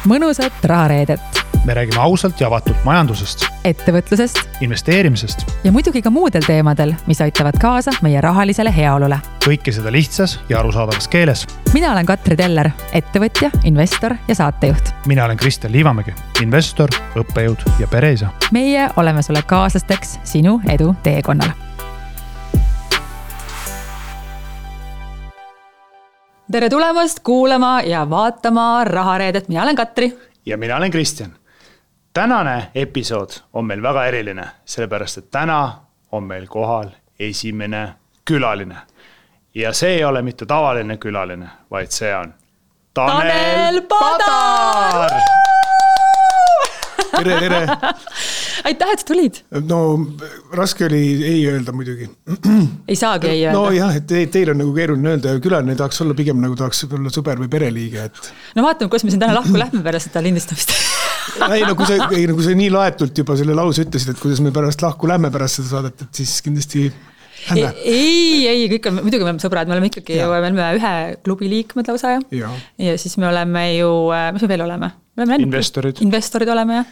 mõnusat rahareedet. Me räägime ausalt ja avatult majandusest, ettevõtlusest investeerimisest ja muidugi ka muudel teemadel, mis aitavad kaasa meie rahalisele heaolule. kõike seda lihtsas ja arusaadavas keeles. Mina olen Katri Teller, ettevõtja, investor ja saatejuht. Mina olen Kristjan Liivamägi, investor, õppejõud ja pereisa. Meie oleme sulle kaaslasteks sinu edu teekonnal. Tere tulemast kuulama ja vaatama rahareedet. Mina olen Katri. Ja mina olen Kristjan. Tänane episood on meil väga eriline, sellepärast et täna on meil kohal esimene külaline. Ja see ei ole mitte tavaline külaline, vaid see on Tanel Padar! Tere! Aitäh, et sa tulid. No raske oli ei öelda muidugi. Ei saagi ei öelda. No jah, et teil on nagu keeruline öelda ja külaline tahaks olla pigem nagu tahaks olla sõber või pereliige. Et... No vaatame, kuidas me siin täna lahku lähme pärast seda lindistamist. Kui sa nii laetult juba selle lause ütlesid, et kuidas me pärast lahku lähme pärast seda saadet, et siis kindlasti... Ei, kõik on, muidugi me oleme sõbrad, me oleme ikkagi ju, me oleme ühe klubi liikmed lausa ja siis me oleme ju, mis me veel oleme? Investorid oleme ja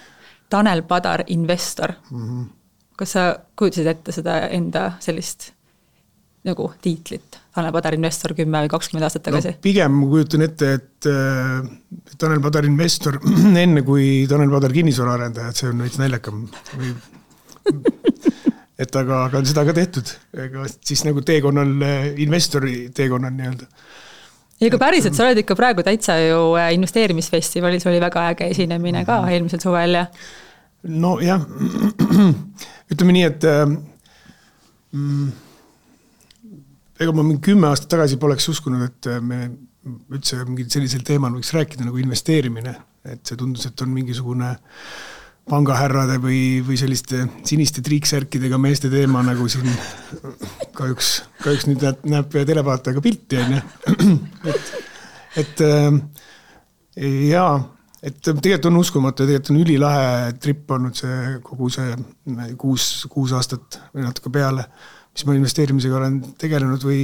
Tanel Padar, investor. Kas sa kujutasid ette seda enda sellist nagu tiitlit? Tanel Padar, investor 10 või 20 aastat tagasi? No, pigem ma kujutan ette, et Tanel Padar, investor enne kui Tanel Padar kinnisvaraarendaja, et see on veits näljakam või... Et aga on seda ka tehtud, siis nagu teekonnal, investori teekonnal nii-öelda. Ja ka päriselt, sa oled ikka praegu täitsa ju investeerimisfestivalis, oli väga äge esinemine ka eelmisel suvel ja... No jah, ütleme nii, et ega ma 10 aastat tagasi poleks uskunud, et me üldse mingi sellisel teemal võiks rääkida nagu investeerimine, et see tundus, et on mingisugune pangahärrade või selliste siniste triiksärkidega meeste teema, nagu siin kahjuks nüüd näeb televaatajaga pilti. Et tegelikult on uskumatu ja tegelikult on ülilahe trip olnud see kogu see 6 aastat või natuke peale, mis ma investeerimisega olen tegelenud või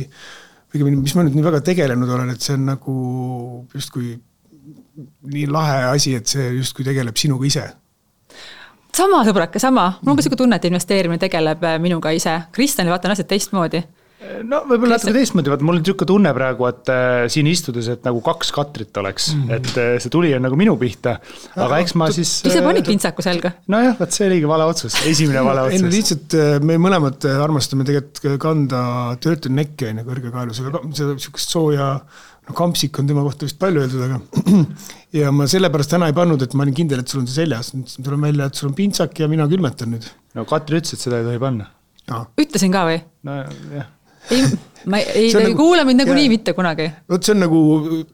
mis ma nüüd nii väga tegelenud olen, et see on nagu justkui nii lahe asi, et see justkui tegeleb sinuga ise. Sama sõbrake, sama. Mul on ka siuke tunne, et investeerimine tegeleb minuga ise. Kristjanil vaatan asjad teistmoodi. No võib-olla natuke teistmoodi. Mul on siuke tunne praegu, et siin istudes, et nagu 2 Katrit oleks. Et see tuli on nagu minu pihta. Aga eks ma siis... Ise panid pintsaku selga? No jah, see oligi vale otsus. Esimene vale otsus. Ei, lihtsalt me mõlemad armastame tegelikult kanda töötu nekke kõrge kaelusega. Seda siukest sooja... Kampsik on tema kohta vist palju öeldud, aga ja ma sellepärast täna ei pannud, et ma olin kindel, et sul on see seljas. Tuleb välja, et sul on pintsak ja mina külmetan nüüd. No Katri ütles, et seda ei tohi panna. Ütlesin ka või? No jah. Ei kuule mind nagu nii mitte kunagi. Võt see on nagu,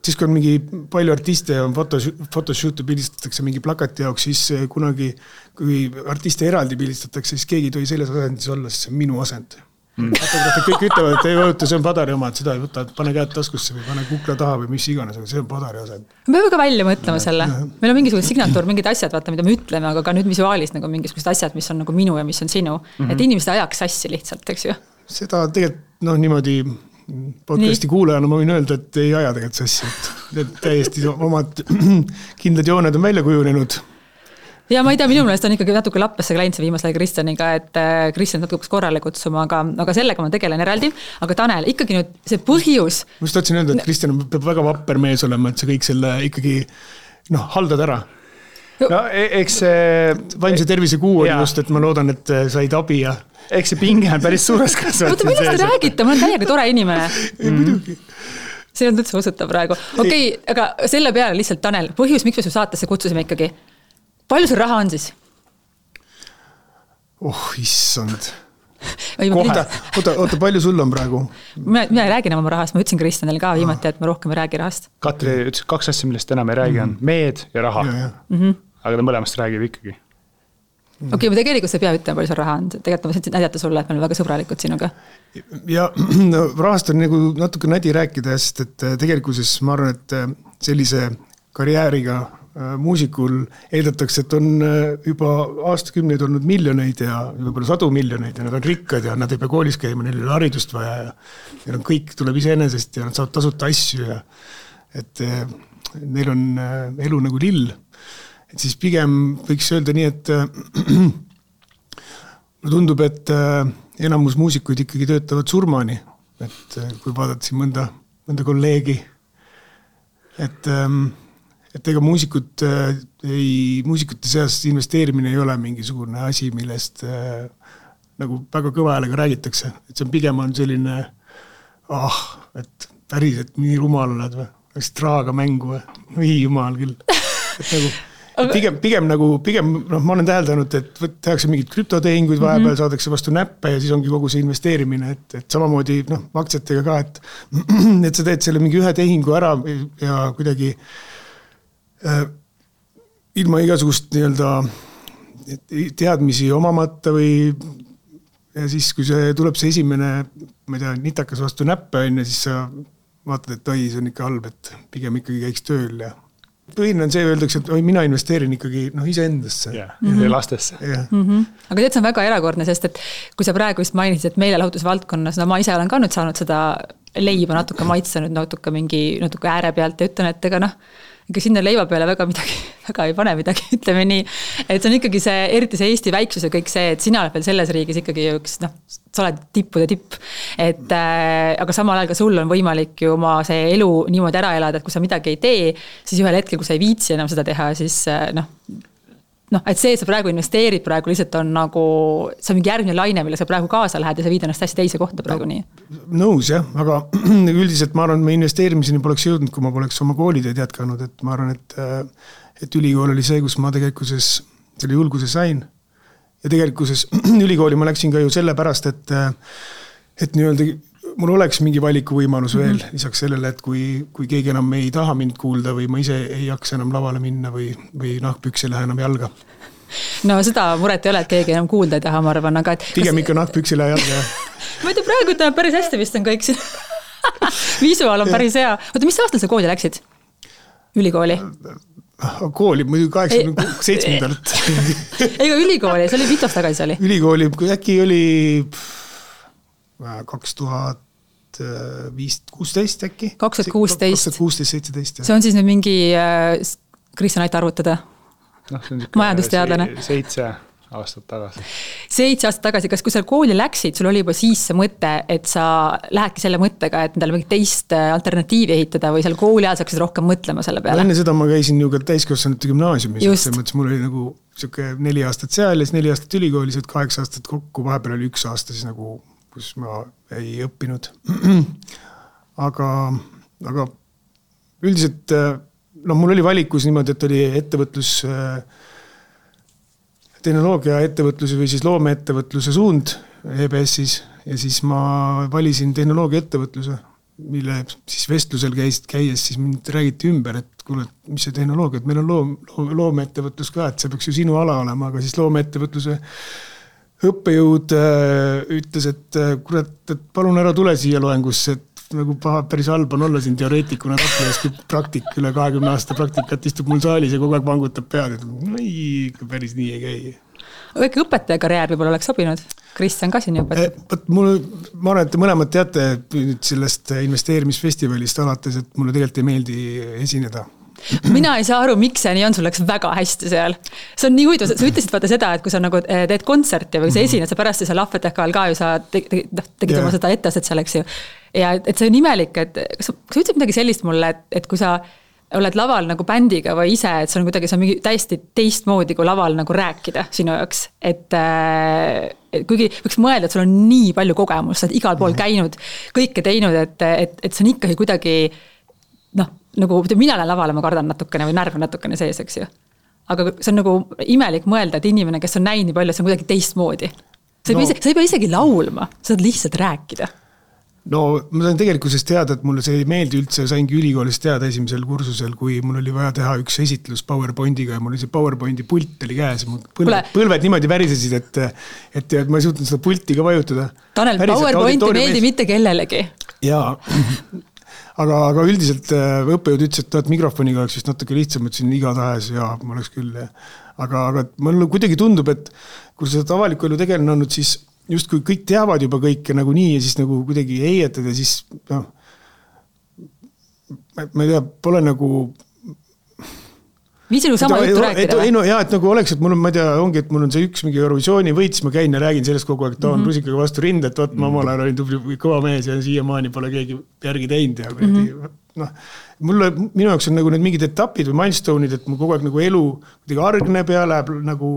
siis kui on mingi palju artiste ja photoshoot'e pildistatakse mingi plakati jaoks, siis kunagi, kui artiste eraldi pildistatakse, siis keegi ei tohi selles asendis olla, siis see on minu asend. Kõik ütlevad, et ei võtta, see on Padari oma, et seda ei võta, pane käed taskusse või pane kukla taha või mis iganes, aga see on Padari asend. Me peame ka välja mõtlema selle. Meil on mingisugused signatuur, mingid asjad, vaata, mida me ütleme, aga ka nüüd visuaalis nagu mingisugused asjad, mis on nagu minu ja mis on sinu. Et inimesed ajaks sassi lihtsalt, eks ju? Seda tegelikult niimoodi podcasti kuulajana ma võin öelda, et ei aja tegelikult sassi. Et täiesti omad kindlad jooned on välja kujunenud. Ja ma ei tea, minu meelest on ikkagi natuke lappesse läinud see viimasel Kristjaniga, et Kristjan natuke korrale kutsuma, aga sellega ma tegelen eraldi. Aga Tanel, ikkagi nüüd see põhjus... Ma just tahtsin öelda, et Kristjan peab väga vapper mees olema, et see kõik selle ikkagi haldad ära. No eks see... Vaimse tervise kuu oli just, et ma loodan, et said abi ja... Eks see pinge on päris suures kasvanud. Oota, millest te räägite? Ma olen täiega tore inimene. Muidugi. See on üldse usutav praegu. Okei, aga selle peale lihtsalt Tanel, põhjus, miks me su saatesse kutsusime ikkagi? Palju sul raha on siis? Issand. Oota, palju sul on praegu? Mina ei räägi enam oma rahast, ma ütlesin Kristjanil ka viimati, et ma rohkem ei räägi rahast. Katri ütles 2 asja, millest enam ei räägi on meed ja raha. Aga ta mõlemast räägib ikkagi. Okei, ma tegelikult sa ei pea ütlema, palju sul raha on. Tegelikult ma sain näidata sulle, et me oleme väga sõbralikud sinuga. Ja rahast on nagu natuke nädi rääkida, sest et tegelikuses ma arvan, et sellise karjääriga muusikul eeldatakse, et on juba aastakümneid olnud miljoneid ja võib-olla 100 miljoneid ja nad on rikkad ja nad ei pea koolis käima, neil ei ole haridust vaja ja kõik tuleb iseenesest ja nad saavad tasuta asju ja et neil on elu nagu lill. Et siis pigem võiks öelda nii, et mulle tundub, et enamus muusikuid ikkagi töötavad surmani. Et kui vaadata siin mõnda kolleegi, et ega muusikute seas investeerimine ei ole mingisugune asi, millest nagu väga kõva häälega räägitakse. Et see on pigem on selline, et päriselt nii rumal oled või, oleks traaga mängu või jumal küll. Et nagu, pigem, ma olen täheldanud, et tehakse mingid krüptotehinguid, vahepeal saadakse vastu näppe ja siis ongi kogu see investeerimine, et samamoodi aktsiatega ka, et sa teed selle mingi ühe tehingu ära ja kuidagi ilma igasugust nii-öelda teadmisi omamata või ja siis, kui tuleb see esimene, ma ei tea, nitakas vastu näppe, siis sa vaatad, et see on ikka halb, et pigem ikkagi käiks tööl ja põhine on see, öeldakse, et mina investeerin ikkagi iseendasse. Ja lastesse. Aga tead, see on väga erakordne, sest et kui sa praegu just mainisid, et meelelahutusvaldkonnas, ma ise olen ka nüüd saanud seda leiba natuke maitsenud, natuke ääre pealt ja ütlen, et ega ega sinna leiva peale väga ei pane midagi, ütleme nii. Et see on ikkagi see, eriti see Eesti väiksus ja kõik see, et sina oled veel selles riigis ikkagi üks, sa oled tippude tipp. Aga samal ajal ka sul on võimalik ju oma see elu niimoodi ära elada, et kui sa midagi ei tee, siis ühel hetkel, kui sa ei viitsi enam seda teha, siis et see, et sa praegu investeerid praegu lihtsalt on nagu, see on mingi järgmine laine, mille sa praegu kaasa lähed ja sa viid ennast hästi teise kohta praegu nii. Nõus jah, aga üldiselt ma arvan, et me investeerimiseni poleks jõudnud, kui ma poleks oma kooliteed jätkanud, et ma arvan, et ülikool oli see, kus ma tegelikkuses selle julguse sain ja tegelikkuses ülikooli ma läksin ka ju sellepärast, et nii-öelda mul oleks mingi valikuvõimalus veel lisaks sellele, et kui keegi enam ei taha mind kuulda või ma ise ei jaksa enam lavale minna või nahkpüks ei lähe enam jalga. No seda muret ei ole, et keegi enam kuulda ei taha, ma arvan, aga pigem ikka nahkpüks ei lähe jalga. Ma ei tea, praegu ütleme päris hästi vist on kõik siin. Visuaal on päris hea. Oota, mis aastal sa kooli läksid? Ülikooli? Kooli, muidu 87. Ega ülikooli, see oli mitu aastat tagasi oli? Ülikooli, äkki oli 2016 äkki? 2016-17. See on siis nüüd mingi Kristjan aita arvutada? Majandusteadlane. 7 aastat tagasi. 7 aastat tagasi, kas kui sa kooli läksid, sul oli juba siis see mõte, et sa lähedki selle mõttega, et endale mingit teist alternatiivi ehitada või seal kooli ajal saaksid rohkem mõtlema selle peale? Enne seda ma käisin ju ka täiskasvanute gümnaasiumis, selles mõttes mul oli nagu 4 aastat seal ja 4 aastat ülikoolis, 8 aastat kokku, vahepeal oli 1 aasta siis nagu, kus ma ei õppinud. Aga üldiselt mul oli valikus niimoodi, et oli ettevõtlus, tehnoloogia ettevõtluse või siis loomeettevõtluse suund EBS-is ja siis ma valisin tehnoloogia ettevõtluse, mille siis vestlusel käies siis mind räägiti ümber, et kuule, mis see tehnoloogia, et meil on loomeettevõtlus ka, et see peaks ju sinu ala olema, aga siis loomeettevõtluse õppejõud ütles, et kurat, et palun ära tule siia loengusse, et nagu päris halb on olla siin teoreetikuna Raplas, kui praktik üle 20 aasta praktikat istub mul saalis ja kogu aeg vangutab pead, et päris nii ei käi. Aga ikka õpetaja karjäär võib-olla oleks sobinud? Kristjan ka siin õpetab. Ma arvan, et te mõlemad teate sellest investeerimisfestivalist alates, et mulle tegelikult ei meeldi esineda. Mina ei saa aru, miks see nii on, sul läks väga hästi seal. See on nii huvitav, sa ütlesid vaata seda, et kui sa nagu teed kontserti või sa esined, sa pärast seal lahvetehkal ka ju sa tegid oma seda etteastet seal, eks ju. Ja et see on imelik, et sa ütlesid midagi sellist mulle, et kui sa oled laval nagu bändiga või ise, et see on kuidagi see on mingi täiesti teistmoodi kui laval nagu rääkida sinu jaoks. Et kuigi võiks mõelda, et sul on nii palju kogemus, sa oled igal pool käinud, kõike teinud, et see on ikkagi kuidagi nagu mina olen lavale, ma kardan natukene või närv natukene sees, eks ju. Aga see on nagu imelik mõelda, et inimene, kes on näinud nii palju, see on kuidagi teistmoodi. Sa ei pea isegi laulma, sa saad lihtsalt rääkida. No ma sain tegelikkuses teada, et mulle see ei meeldi üldse, saingi ülikoolis teada esimesel kursusel, kui mul oli vaja teha üks esitlus PowerPointiga ja mul oli see PowerPointi pult oli käes. Põlved niimoodi värisesid, et ma ei suutnud seda pulti ka vajutada. Tanel, PowerPointi meeldi mitte kellelegi. Jaa, aga üldiselt õppejõud ütles, et mikrofoniga oleks vist natuke lihtsam, ütlesin igatahes ja ma oleks küll. Aga mulle kuidagi tundub, et kui sa avaliku elu tegelane olnud, siis just kui kõik teavad juba kõike nagu nii ja siis nagu kuidagi heietad ja siis ma ei tea, pole nagu viisil sama juttu rääkida või? Et nagu oleks, et mul on, ma ei tea, ongi, et mul on see üks mingi Eurovisiooni võit, siis ma käin ja räägin sellest kogu aeg, et ta on rusikaga vastu rinda, et vaat ma omal ajal olin tubli kõva mees ja siiamaani pole keegi järgi teinud ja minu jaoks on nagu need mingid etapid või milestone'id, et mul kogu aeg nagu elu kuidagi argneb ja läheb nagu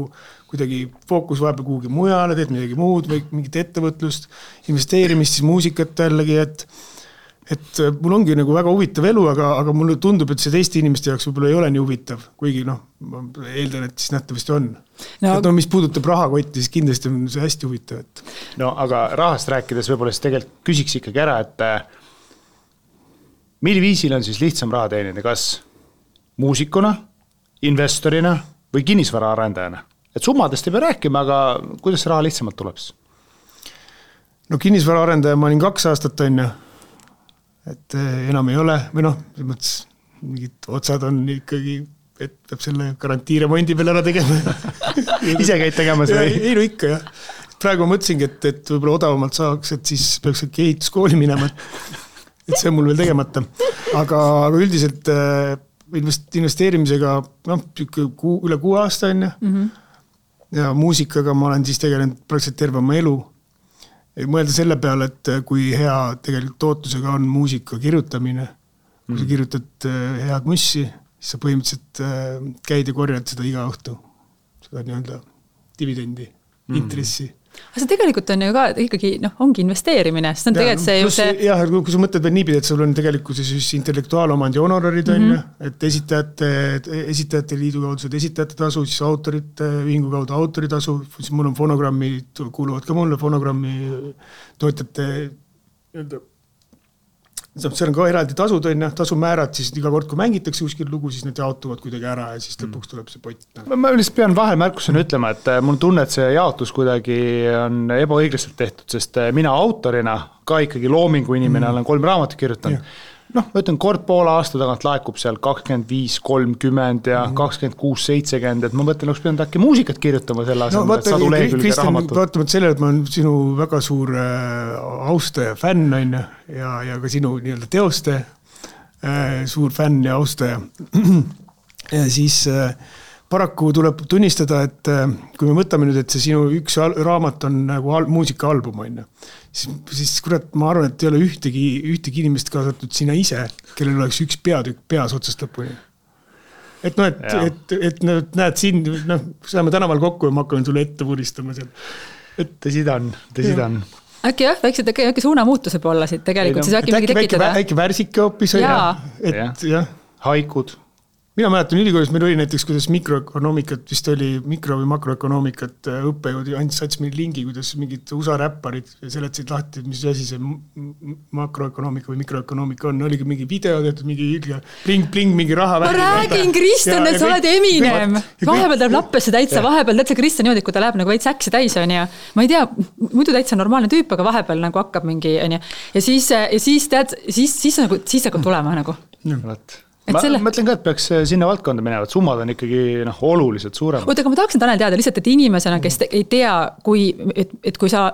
kuidagi fookus vahepeal kuhugi mujale, teed midagi muud või mingit ettevõtlust, investeerimist, siis muusikat jällegi, et mul ongi nagu väga huvitav elu, aga mulle tundub, et see teiste inimeste jaoks võib-olla ei ole nii huvitav, kuigi ma eeldan, et siis nähtavasti on. Et mis puudutab rahakotti, siis kindlasti on see hästi huvitav. No aga rahast rääkides võib-olla siis tegelikult küsiks ikkagi ära, et milli viisil on siis lihtsam raha teenida, kas muusikuna, investorina või kinnisvara arendajana? Et summadest ei pea rääkima, aga kuidas raha lihtsamalt tuleb? No kinnisvara arendaja ma olin 2 aastat on ja et enam ei ole, või mingid otsad on ikkagi, et peab selle garantiiremondi peal ära tegema. Ise käid tegemas või? Ei, no ikka jah. Praegu ma mõtlesingi, et võib-olla odavamalt saaks, et siis peaks ehituskooli minema, et see on mul veel tegemata. Aga üldiselt investeerimisega üle 6 aasta on ja muusikaga ma olen siis tegelenud praktiliselt terve oma elu. Mõelda selle peale, et kui hea tegelikult tootlusega on muusika kirjutamine, kui sa kirjutad head mussi, siis sa põhimõtteliselt käid ja korjad seda iga õhtu, seda nii-öelda dividendi, intressi. Aga see tegelikult on ju ka ikkagi, ongi investeerimine, sest on tegelikult see ju see... Jah, kui sa mõtled veel niipidi, et sul on tegelikult siis intellektuaalomandi honorarid on ju, et esitajate liidu kaudu saad esitajate tasu, siis autorite ühingu kaudu autoritasu, siis mul on fonogrammi, kuuluvad ka mulle fonogrammi toetajate seal on ka eraldi tasud on ja tasumäärad, siis iga kord, kui mängitakse kuskil lugu, siis need jaotuvad kuidagi ära ja siis lõpuks tuleb see pott. Ma lihtsalt pean vahemärkusena ütlema, et mul tunne, et see jaotus kuidagi on ebaõiglaselt tehtud, sest mina autorina ka ikkagi loomingu inimene olen 3 raamatut kirjutanud. Ma ütlen, kord poole aasta tagant laekub seal 25, 30 ja 26, 70, et ma mõtlen, oleks pidanud äkki muusikat kirjutama selle asemel, et sadu lehekülge raamatut. Vaatamata sellele, et ma olen sinu väga suur austaja, fänn on ja ka sinu nii-öelda teoste suur fänn ja austaja. Ja siis paraku tuleb tunnistada, et kui me mõtleme nüüd, et see sinu üks raamat on nagu muusikaalbum on siis kurat, ma arvan, et ei ole ühtegi inimest kaasatud sina ise, kellel oleks üks peatükk peas otsast lõpuni. Et näed siin, saame tänaval kokku ja ma hakkan sulle ette puristama seal. Tõsi ta on. Äkki jah, väiksed äkki suunamuutuse poole siit tegelikult, siis äkki mingi tekitada. Äkki värsike hoopis on jah. Haikud. Mina mäletan ülikoolis, meil oli näiteks, kuidas mikroökonoomikat, vist oli mikro- või makroökonoomikat õppejõud ja andis sats meil lingi, kuidas mingid USA räpparid seletasid lahti, mis asi see makroökonoomika või mikroökonoomika on. Oligi mingi video tehtud, mingi pling, mingi raha. Ma räägin, Kristjan, et sa oled Eminem. Vahepeal tuleb lappesse täitsa, vahepeal täitsa Kristjan niimoodi, kui ta läheb nagu veits äksi täis on ja ma ei tea, muidu täitsa normaalne tüüp, aga vahepeal nagu hakkab mingi on ja siis hakkab tulema nagu. Ma mõtlen ka, et peaks sinna valdkonda minevad, summad on ikkagi oluliselt suuremad. Aga ma tahaksin Tanel teada lihtsalt, et inimesena, kes ei tea, et kui sa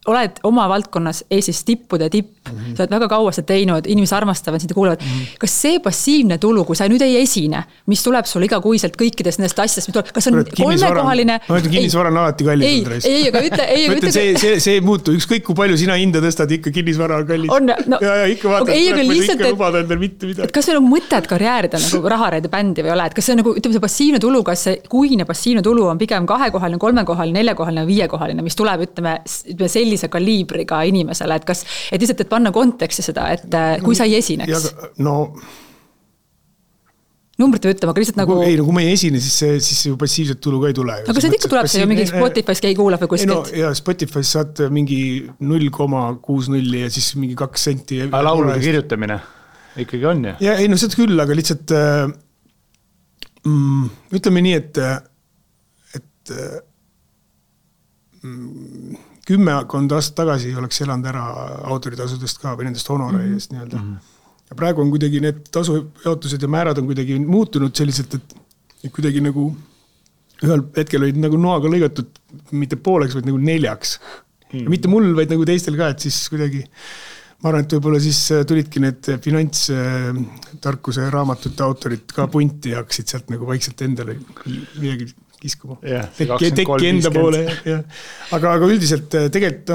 oled oma valdkonnas Eestis tippude tipp, sa oled väga kaua seda teinud, inimesed armastavad, sind kuulevad. Kas see passiivne tulu, kui sa nüüd ei esine, mis tuleb sul igakuiselt kõikidest nendest asjadest, kas on 3-kohaline... Ma ütlen, kinnisvara on alati kallis. Ei, aga ütle... See ei muutu, ükskõik kui palju sina hinda tõstad, ikka kinnisvara on kallis. Ja ikka vaatad, et kas see on mõtet karjäärida nagu rahareide bändi või ole, et kas see on nagu, ütleme see passiivne tulu, kas see kuine passiivne tulu on pigem 2-kohaline, 3-kohaline, 4-kohaline, 5-kohaline, mis tuleb, ütleme sellise kaliibriga inimesele, et kas, et lihtsalt, et panna konteksti seda, et kui sa ei esineks. Numbrit või ütlema, aga lihtsalt nagu... Ei, kui ma ei esine, siis ju passiivset tulu ka ei tule. Aga see ikka tuleb see ju mingi Spotify's keegi kuulab või kuskilt. Ja Spotify's saad mingi 0,60 ja siis mingi 2 senti. Aga laulude kirjutamine ikkagi on ju? Ja ei, no seda küll, aga lihtsalt ütleme nii, et 10 aastat tagasi oleks elanud ära autoritasudest ka või nendest honoraidest nii-öelda. Ja praegu on kuidagi need tasujaotused ja määrad on kuidagi muutunud selliselt, et kuidagi nagu ühel hetkel olid nagu noaga lõigatud mitte pooleks, vaid nagu 4. Ja mitte mul, vaid nagu teistel ka, et siis kuidagi ma arvan, et võib-olla siis tulidki need finantstarkuse raamatute autorid ka punti ja hakkasid sealt nagu vaikselt endale midagi kiskuma. Tekki enda poole. Aga üldiselt tegelikult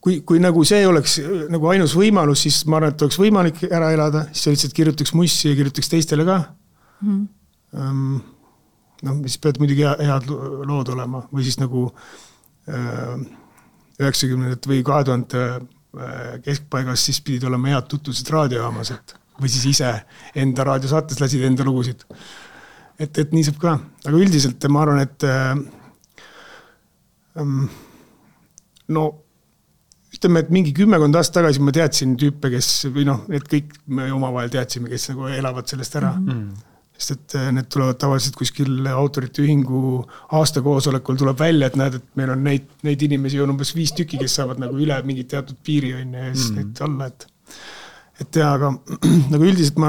kui nagu see oleks nagu ainus võimalus, siis ma arvan, et oleks võimalik ära elada, siis sa lihtsalt kirjutaks mussi ja kirjutaks teistele ka. Siis pead muidugi head lood olema või siis nagu 90 või 2000 keskpaigas siis pidid olema head tutvused raadiojaamas, või siis ise enda raadiosaates lasid enda lugusid. Et nii saab ka. Aga üldiselt ma arvan, et ütleme, et mingi 10 aastat tagasi ma teadsin tüüpe, kes, või need kõik me omavahel teadsime, kes nagu elavad sellest ära. Sest et need tulevad tavaliselt kuskil autorite ühingu aastakoosolekul tuleb välja, et näed, et meil on neid inimesi on umbes 5 tükki, kes saavad nagu üle mingi teatud piiri ja siis neid alla, et tea, aga nagu üldiselt ma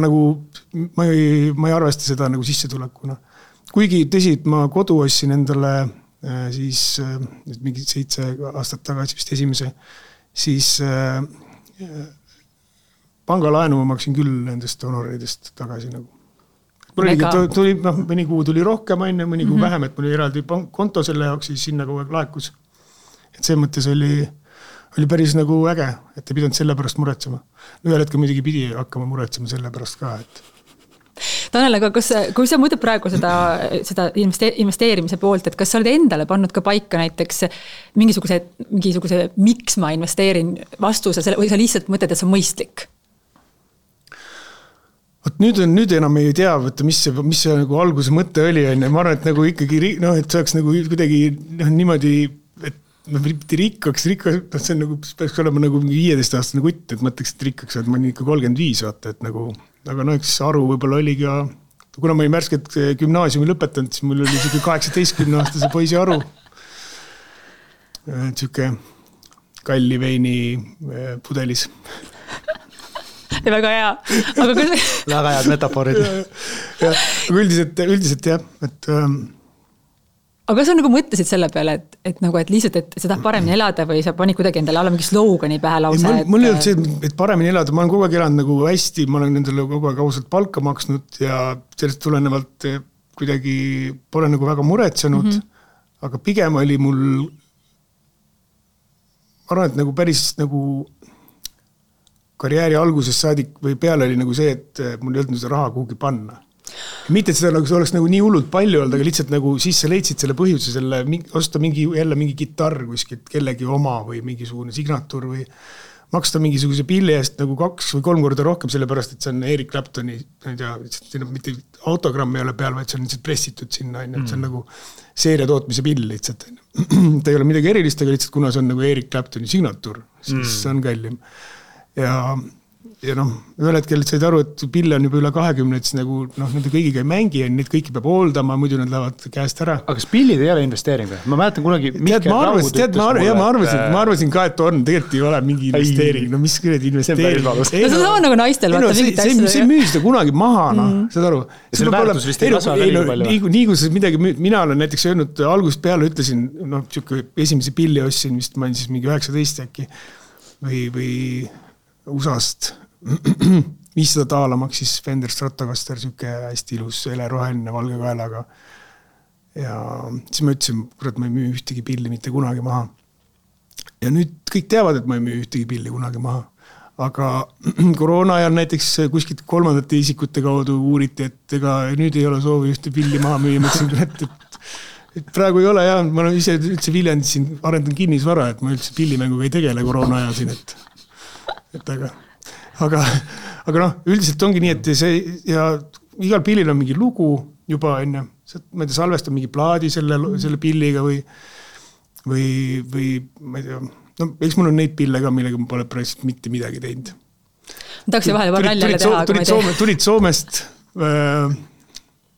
ei arvesta seda nagu sissetulekuna. Kuigi tõsi, et ma kodu ostsin endale siis mingi 7 aastat tagasi vist esimese, siis pangalaenu ma maksin küll nendest honoridest tagasi nagu. Tuli, mõni kuu tuli rohkem, mõni kuu vähem, et mul oli eraldi konto selle jaoks, siis sinna kogu aeg laekus. Et see mõttes oli päris nagu äge, et ei pidanud selle pärast muretsema. Ühel hetkel muidugi pidi hakkama muretsema selle pärast ka. Tanel, aga kui sa mõtled praegu seda investeerimise poolt, et kas sa oled endale pannud ka paika näiteks mingisuguse miks ma investeerin vastuse või sa lihtsalt mõtled, et see on mõistlik? Nüüd enam ei tea, mis see nagu alguse mõte oli. Ma arvan, et nagu ikkagi, et see oleks nagu kuidagi niimoodi, et mitte rikkaks, see on nagu, peaks olema nagu 15-aastane kutt, et mõtleks, et rikkaks, et ma olen ikka 35, vaata, et nagu, aga üks aru võib-olla oli ka, kuna ma olin märskelt gümnaasiumi lõpetanud, siis mul oli 18-aastase poisi aru. Tšüke kalli veini pudelis. Ja väga hea. Väga head metafoorid. Aga üldiselt jah. Aga kas sa nagu mõtlesid selle peale, et lihtsalt, et sa tahad paremini elada või sa panid kuidagi endale alla mingi slogani pähe lause? Mul ei olnud see, et paremini elada. Ma olen kogu aeg elanud nagu hästi, ma olen nendele kogu aeg ausalt palka maksnud ja sellest tulenevalt kuidagi pole nagu väga muretsenud, aga pigem oli mul ma arvan, et nagu päris nagu karjääri alguses saadik või peale oli nagu see, et mul ei olnud seda raha kuhugi panna. Mitte, et seda oleks nagu nii hullult palju olnud, aga lihtsalt nagu siis sa leidsid selle põhjuse, osta jälle mingi gitarr kuskilt kellegi oma või mingisugune signatuur või maksta mingisuguse pilli eest nagu 2 või 3 korda rohkem, sellepärast, et see on Eric Claptoni, mitte autogramm ei ole peal, vaid see on lihtsalt pressitud sinna, et see on nagu seeria tootmise pill lihtsalt. Ta ei ole midagi erilist, aga lihtsalt kuna see on nagu Eric Claptoni signatuur, siis see on kallim. Ja ühel hetkel said aru, et pille on juba üle 20, et siis nagu nende kõigiga ei mängi ja neid kõiki peab hooldama, muidu nad lähevad käest ära. Aga kas pillid ei ole investeering? Ma mäletan kunagi ma arvasin ka, et on, tegelikult ei ole mingi investeering. No mis küll investeering? See on sama nagu naistel. See müü seda kunagi maha, saad aru? Selle väärtus vist ei kasva veel palju. Nii kui midagi, mina olen näiteks öelnud, algusest peale ütlesin, esimese pilli ostsin, vist ma olin siis mingi 19 äkki või USA-st $500 maksis Fender Stratocaster, süke hästi ilus heleroheline valge kaelaga. Ja siis ma ütlesin, kurat, ma ei müü ühtegi pilli mitte kunagi maha. Ja nüüd kõik teavad, et ma ei müü ühtegi pilli kunagi maha. Aga koroona ajal näiteks kuskilt 3. isikute kaudu uuriti, et ega nüüd ei ole soovi ühte pilli maha müüa. Ma ütlesin, et praegu ei ole ja ma olen ise üldse Viljandis siin arendan kinnisvara, et ma üldse pillimänguga ei tegele koroona ajal siin, aga üldiselt ongi nii, et see ja igal pillil on mingi lugu juba enne, ma ei tea, salvestan mingi plaadi selle pilliga või ma ei tea, eks mul on neid pille ka, millega ma pole praegu mitte midagi teinud. Tahaks vahele paar nalja teha. Tulid Soomest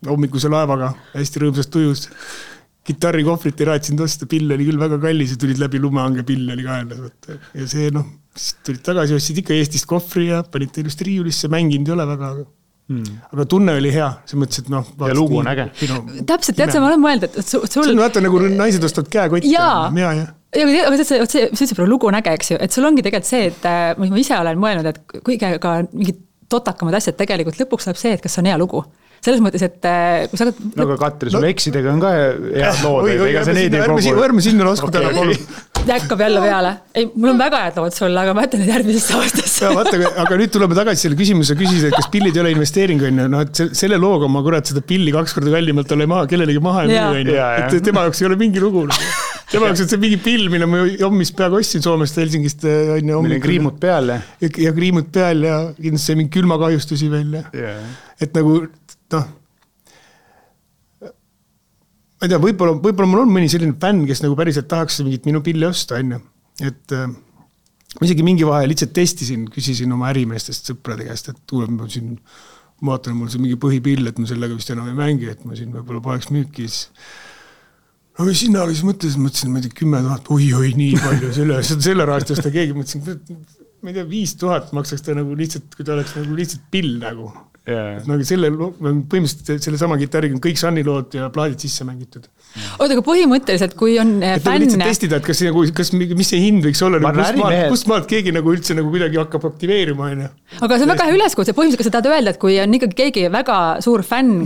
hommikuse laevaga hästi rõõmsast tujus. Gitarri kohvrit ei raatsin tosta, pill oli küll väga kallis ja tulid läbi lumehange, pill oli kaelas. Ja see tulid tagasi, ostsid ikka Eestist kohvri ja panid ilusti riiulisse, mänginud ei ole väga, aga tunne oli hea, see mõttes, et ja lugu on äge. Täpselt, tead sa, ma olen mõelnud, et sul... See on vaata nagu naised ostavad käekotti. Jaa, aga see lugu on äge, eks ju, et sul ongi tegelikult see, et ma ise olen mõelnud, et kõige ka mingid totakamad asjad tegelikult lõpuks läheb see, et kas on hea lugu. Selles mõttes, et kui sa... No aga Katri, sul eksidega on ka head lood, ega see neid ei kogu... Ärme sinna lasku täna palun. Jäkkab jälle peale. Ei, mul on väga head lood sulle, aga ma ütlen nüüd järgmisesse aastasse. Aga nüüd tuleme tagasi selle küsimuse küsida, et kas pillid ei ole investeering, on ju. No, et selle looga ma kurat seda pilli 2 korda kallimalt ole kellelegi maha ja müü, et tema jaoks ei ole mingi lugu. Tema jaoks on see mingi pill, mille ma hommis peaaegu ostsin Soomest Helsingist. Meil on kriimud peal. Ja kriimud peal ja kindlasti mingi külmakahjustusi veel. Et nagu... ma ei tea, võib-olla mul on mõni selline fänn, kes nagu päriselt tahaks mingit minu pilli osta, on ju. Et ma isegi mingi vahe lihtsalt testisin, küsisin oma ärimeestest sõprade käest, et tuleb ma siin, vaatan, mul see mingi põhipill, et ma sellega vist enam ei mängi, et ma siin võib-olla paneks müüki. No või sinna siis mõtlesin, ma ei tea, 10 000, oi, nii palju, selle rahast osta keegi, mõtlesin, ma ei tea, 5 000 maksaks ta nagu lihtsalt, kui ta oleks nagu lihtsalt pill nagu. Nagu põhimõtteliselt selle sama kitarriga on kõik Sunny-lood ja plaadid sisse mängitud. Oota, aga põhimõtteliselt, kui on fänn... lihtsalt testida, et mis see hind võiks olla, kust maalt keegi nagu üldse nagu kuidagi hakkab aktiveerima. Aga see on väga hea üleskutse, põhimõtteliselt, kas sa tahad öelda, et kui on ikkagi keegi väga suur fänn,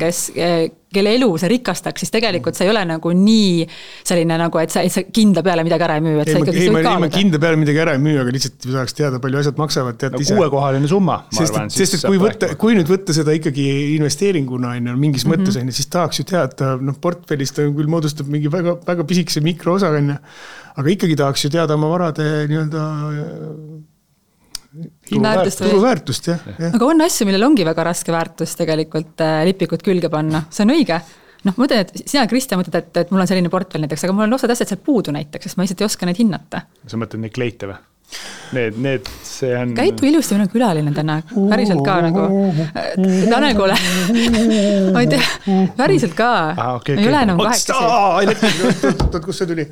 kelle elu see rikastaks, siis tegelikult see ei ole nagu nii selline nagu, et sa kindla peale midagi ära ei müü. Ei, ma kindla peale midagi ära ei müü, aga lihtsalt saaks teada, palju asjad maksavad. No 6-kohaline summa, ma arvan. Sest kui nüüd võtta seda ikkagi investeeringuna mingis mõttes, siis tahaks ju teada, portfellist küll moodustab mingi väga, väga pisikese mikroosa, aga ikkagi tahaks ju teada oma varade nii-öelda turuväärtust, jah. Aga on asju, millel ongi väga raske väärtust tegelikult lipikud külge panna. See on õige. Ma mõtlen, et sina, Kristjan, mõtled, et mul on selline portfell näiteks, aga mul on osad asjad seal puudu näiteks, sest ma lihtsalt ei oska neid hinnata. Sa mõtled neid kleite või? Need, see on... Käitu ilusti, meil on külaline täna. Päriselt ka nagu... Tanel, kuule. Ma ei tea, päriselt ka. Okay. Ei ole enam 8. Kus see tuli?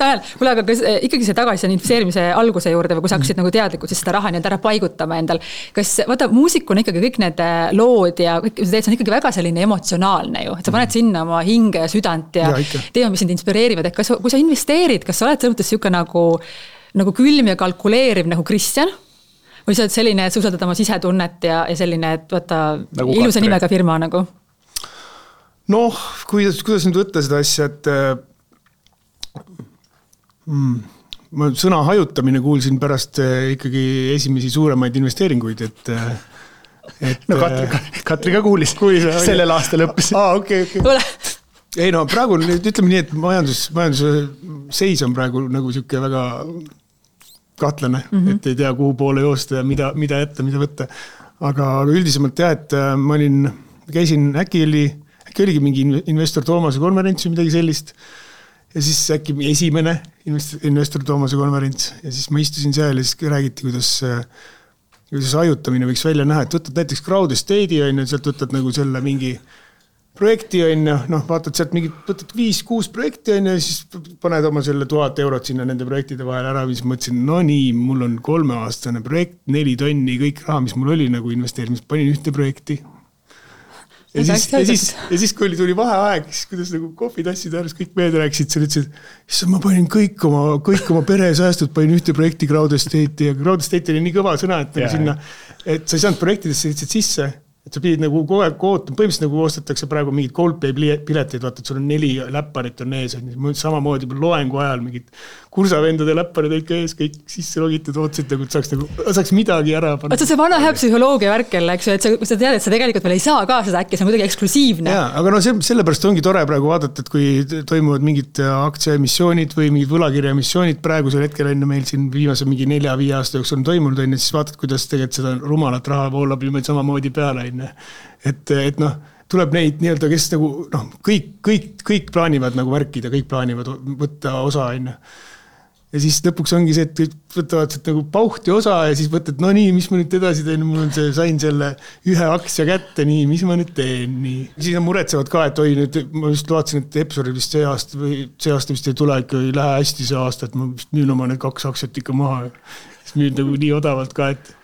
Tanel, kuule, aga kas ikkagi see tagasi on investeerimise alguse juurde või kui sa hakkasid nagu teadlikult siis seda raha nii ära paigutama endal. Kas, vaata, muusik on ikkagi kõik need lood ja kõik, see on ikkagi väga selline emotsionaalne ju, et sa paned sinna oma hinge ja südant ja teema, mis sind inspireerivad, et kui sa investeerid, kas sa oled selles mõttes siuke nagu külm ja kalkuleeriv nagu Kristjan? Või sa oled selline, et sa usaldad oma sisetunnet ja selline, et vaata nagu ilusa nimega firma nagu? Noh, kuidas nüüd võtta seda asja, et ma sõna hajutamine kuulsin pärast ikkagi esimesi suuremaid investeeringuid, et no Katri ka kuulis sellel aastal õppis. Okay. Ei no praegu ütleme nii, et majanduse seis on praegu nagu siuke väga kahtlane, et ei tea kuhu poole joosta ja mida jätta, mida võtta. Aga üldisemalt et ma käisin äkki oligi mingi investor Toomase konverents või midagi sellist. Ja siis äkki esimene investor Toomase konverents ja siis ma istusin seal ja siis räägiti, kuidas hajutamine võiks välja näha, et võtad näiteks Crowd Estate'i on ja sealt võtad nagu selle mingi projekti on ja vaatad sealt mingi, võtad 5-6 projekti on ja siis paned oma selle 1000 eurot sinna nende projektide vahel ära, mis mõtlesin, no nii, mul on 3-aastane projekt, 4 tonni, kõik raha, mis mul oli nagu investeerimis, panin ühte projekti. Ja siis kui tuli vaheaeg, siis kuidas nagu kohvitassid ääres kõik mehed rääksid, sa ütlesid, et ma panin kõik oma pere säästud, panin ühte projekti Crowd Estate'i ja Crowd Estate oli nii kõva sõna, et sinna, et sa ei saanud projektidesse lihtsalt sisse, et sa pidid nagu kogu aeg ootama, põhimõtteliselt nagu ostetakse praegu mingid Coldplay piletid, vaata, et sul on 4 läpparit on ees, samamoodi loengu ajal mingid kursavendade läpparid ikka ees, kõik sisse logitud, ootsid, et saaks midagi ära panna. Vaata see vana hea psühholoogia värk jälle, eks ju, et sa tead, et sa tegelikult veel ei saa ka seda äkki, see on kuidagi eksklusiivne. Jaa, aga sellepärast ongi tore praegu vaadata, et kui toimuvad mingid aktsiaemissioonid või mingid võlakirjaemissioonid, praegusel hetkel enne meil siin viimase mingi 4-5 aasta jooksul on toimunud, siis vaatad, kuidas tegelikult seda rumalat raha voolab ilma samamoodi peale. Et tuleb neid nii-öelda, kes nagu, kõik plaanivad nagu värkida, kõik plaanivad võtta osa. Ja siis lõpuks ongi see, et võtavad nagu pauhti osa ja siis võtad, no nii, mis ma nüüd edasi teen, mul on sain selle 1 aktsia kätte, nii, mis ma nüüd teen, nii. Siis on muretsevad ka, et oi, nüüd ma just vaatasin, et Epsori vist see aasta vist ei tule, ikka ei lähe hästi see aasta, et ma müün oma need 2 aktsiat ikka maha. Siis müün nagu nii odavalt ka, et...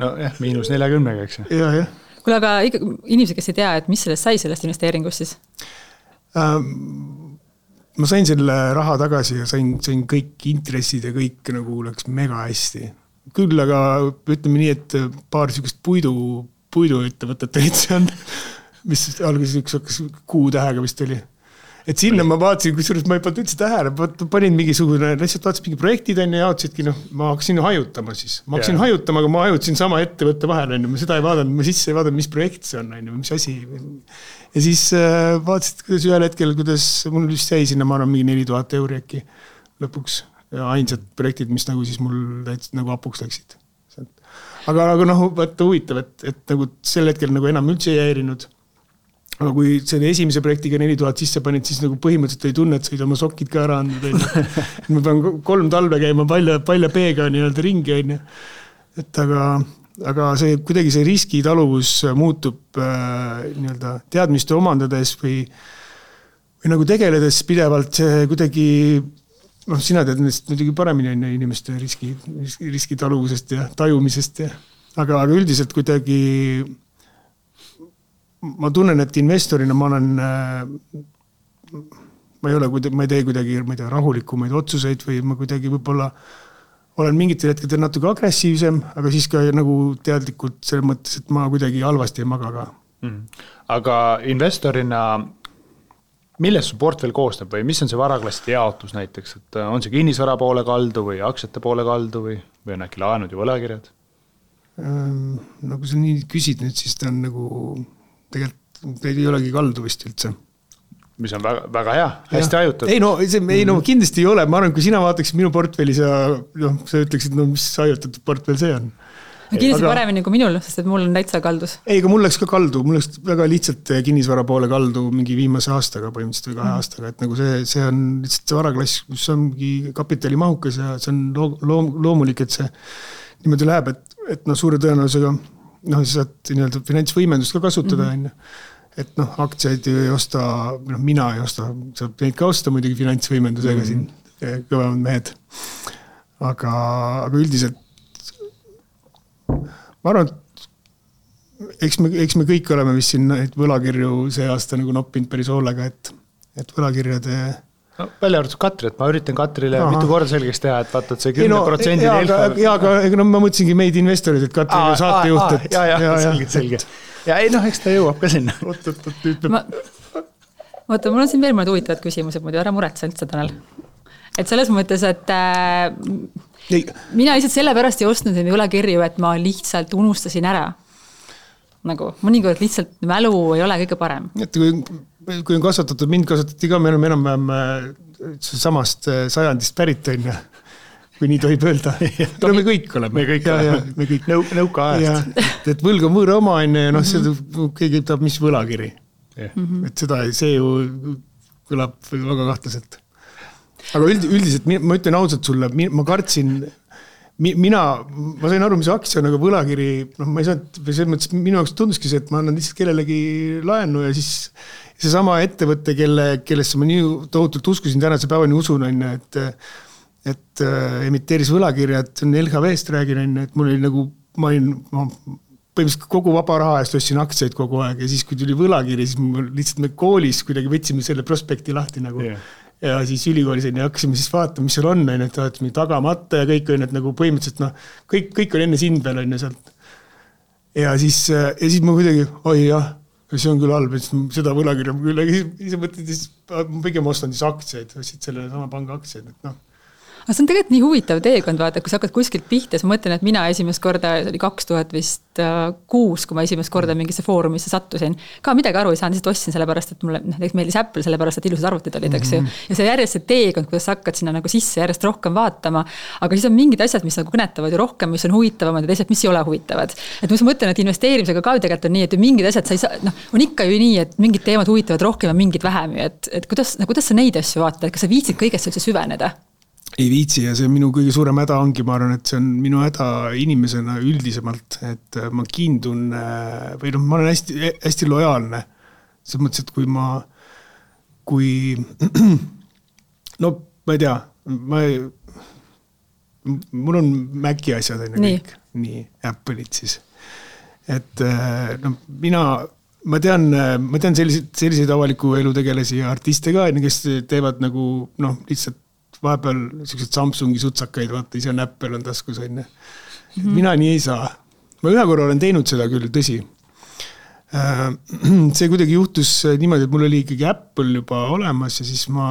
No jah, -40, eks. Jah. Kuule, aga inimesed, kes ei tea, et mis sellest sai sellest investeeringust siis? ma sain selle raha tagasi ja sain kõik intressid ja kõik nagu läks mega hästi. Küll aga ütleme nii, et paar sükest puiduettevõtet olid seal, mis alguses üks hakkas Q-tähega vist oli. Et sinna ma vaatasin, kusjuures ma ei pannud üldse tähele, panin mingisugune, lihtsalt vaatasin mingi projektid ja jaotasidki, ma hakkasin hajutama siis. Ma hakkasin hajutama, aga ma hajutasin sama ettevõtte vahel, ma seda ei vaadanud, ma sisse ei vaadanud, mis projekt see on, mis asi. Ja siis vaatasid, kuidas ühel hetkel, kuidas mul vist jäi sinna, ma arvan, mingi 4000 euri äkki lõpuks. Ja ainsad projektid, mis nagu siis mul täitsa nagu apuks läksid. Aga vaata huvitav, et nagu sel hetkel nagu enam üldse ei häirinud. Aga kui selle esimese projektiga 4000 sisse panid, siis nagu põhimõtteliselt ei tunne, et said oma sokid ka ära andnud. Ma pean 3 talve käima palja peega nii-öelda ringi. Et aga see, kuidagi see riskitaluvus muutub nii-öelda teadmiste omandades või nagu tegeledes pidevalt see kuidagi, sina tead nendest muidugi paremini on inimeste riskitaluvusest ja tajumisest. Aga üldiselt kuidagi ma tunnen, et investorina ma ei tee kuidagi rahulikumaid otsuseid või ma kuidagi võib-olla olen mingitel hetkedel natuke agressiivsem, aga siis ka nagu teadlikult selles mõttes, et ma kuidagi halvasti ei maga ka. Aga investorina, millest su portfell koosneb või mis on see varaklasside jaotus näiteks? Et on see kinnisvara poole kaldu või aktsiate poole kaldu või on äkki laenud ja võlakirjad? Nagu sa nii küsid nüüd, siis ta on nagu tegelikult ei olegi kaldu vist üldse. Mis on väga, väga hea, hästi hajutad. Ei, kindlasti ei ole. Ma arvan, kui sina vaataksid minu portfellis ja sa ütleksid, mis hajutatud portfell see on. Kindlasti paremini kui minul, sest et mul on täitsa kaldus. Ei, aga mul läks ka kaldu. Mul läks väga lihtsalt kinnisvara poole kaldu mingi viimase aastaga, põhimõtteliselt või 2 aastaga. Et nagu see on lihtsalt see varaklass, mis ongi kapitalimahukas ja see on loomulik, et see niimoodi läheb, et suure tõenäosusega sa saad nii-öelda finantsvõimendust ka kasutada, et aktsiaid ei osta, mina ei osta, saab neid ka osta muidugi finantsvõimendusega siin kõvemad mehed. Aga üldiselt ma arvan, et eks me kõik oleme vist siin võlakirju see aasta nagu noppinud päris hoolega, et võlakirjade välja arvatud Katri, et ma üritan Katrile mitu korda selgeks teha, et vaata, et see 10% aga ma mõtlesingi meid investorid, et Katri on saatejuht. Selge. Ja eks ta jõuab ka sinna. Oota, mul on siin veel mõned huvitavad küsimused, muidu ära muretse üldse, Tanel. Et selles mõttes, et mina lihtsalt sellepärast ei ostnud neid võlakirju, et ma lihtsalt unustasin ära. Nagu mõnikord lihtsalt mälu ei ole kõige parem. Et kui on kasvatatud, mind kasvatati ka, me oleme enam samast sajandist pärit on ja kui nii tohib öelda. Me kõik oleme. Me kõik nõuka ajast. Et võlg on võõra oma ja seda keegi ütleb, mis võlakiri. Et see ju kõlab väga kahtlaselt. Aga üldiselt ma ütlen ausalt sulle, ma kartsin ma sain aru, mis aktsia on, aga võlakiri, ma ei saanud, selles mõttes minu jaoks tunduski see, et ma annan lihtsalt kellelegi laenu ja siis see sama ettevõtte, kellesse ma nii tohutult uskusin tänase päevani usun, et emiteeris võlakirjad, see on LHV-st räägin, et mul oli nagu, ma põhimõtteliselt kogu vaba raha eest ostsin aktsiaid kogu aeg ja siis, kui tuli võlakiri, siis lihtsalt me koolis kuidagi võtsime selle prospekti lahti nagu. Ja siis ülikoolis hakkasime siis vaatama, mis seal on, et vaatame tagamata ja kõik on, et nagu põhimõtteliselt, kõik on enne sind veel on sealt. Ja siis ma kuidagi, oi jah, see on küll halb, et seda võlakirja küll, aga siis mõtled, ma pigem ostan siis aktsiaid, selle sama panga aktsiaid, et Aga see on tegelikult nii huvitav teekond, vaata, kui sa hakkad kuskilt pihta, siis ma mõtlen, et mina esimest korda, see oli 2006, kui ma esimest korda mingisse foorumisse sattusin. Ka midagi aru ei saanud, lihtsalt ostsin sellepärast, et mulle meeldis Apple, sellepärast, et ilusad arvutid olid, eks ju. Ja see järjest see teekond, kuidas sa hakkad sinna nagu sisse järjest rohkem vaatama, aga siis on mingid asjad, mis nagu kõnetavad ju rohkem, mis on huvitavamad ja teised, mis ei ole huvitavad. Et ma mõtlen, et investeerimisega ka tegelikult on nii, et mingid asjad sa ei saa, on ikka ju nii, et mingid teemad huvitavad rohkem ja mingid vähem, et kuidas sa neid asju vaatad, et kas sa viitsid kõigest üldse süveneda? Ei viitsi ja see minu kõige suurem häda ongi, ma arvan, et see on minu häda inimesena üldisemalt, et ma kiindun või ma olen hästi lojaalne. See mõttes, et kui ma ei tea, mul on Maci asjad kõik, nii Apple'id siis. Et mina ma tean selliseid avaliku elu tegelasi ja artiste ka, kes teevad nagu lihtsalt vahepeal sellised Samsungi sutsakaid, vaata, ise on Apple on taskus, on. Mina nii ei saa. Ma ühe korra olen teinud seda küll, tõsi. See kuidagi juhtus niimoodi, et mul oli ikkagi Apple juba olemas ja siis ma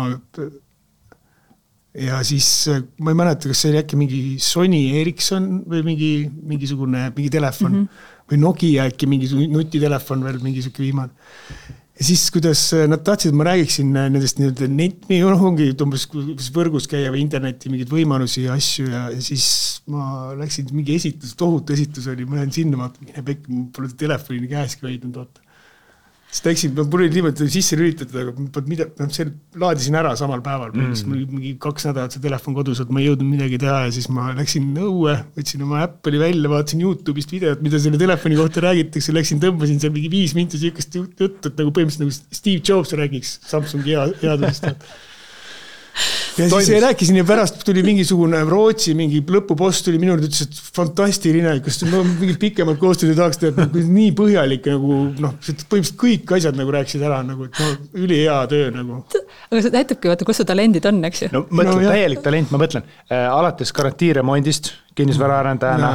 ei mäleta, kas see oli äkki mingi Sony Ericsson või mingi telefon või Nokia äkki mingi nutitelefon veel, mingi siuke viimane. Ja siis, kuidas nad tahtsid, et ma räägiksin nendest ongi umbes võrgus käia või interneti mingid võimalusi ja asju ja siis ma läksin mingi tohutu esitus oli, ma lähen sinna, mine pekk, mul pole telefoni käeski hoidnud, oota. Siis läksin, mul oli niimoodi sisse lülitatud, aga see laadisin ära samal päeval, mingi 2 nädalat see telefon kodus, et ma ei jõudnud midagi teha ja siis ma läksin õue, võtsin oma Apple'i välja, vaatasin YouTube'ist videot, mida selle telefoni kohta räägitakse, tõmbasin seal mingi 5 minti siukest juttu, et nagu põhimõtteliselt nagu Steve Jobs räägiks Samsungi headusest. Ja siis rääkisin ja pärast tuli mingisugune Rootsi, mingi lõpupost tuli minu ütles, et fantastiline, kas mingi pikemalt koostööd tahaks teha, nii põhjalik nagu, põhimõtteliselt kõik asjad nagu rääkisid ära, nagu, et üli hea töö nagu. Aga see näitabki, vaata, kus su talendid on, eks ju? No mõtlen, täielik talent, ma mõtlen, alates garantiiremondist, kinnisvaraarendajana,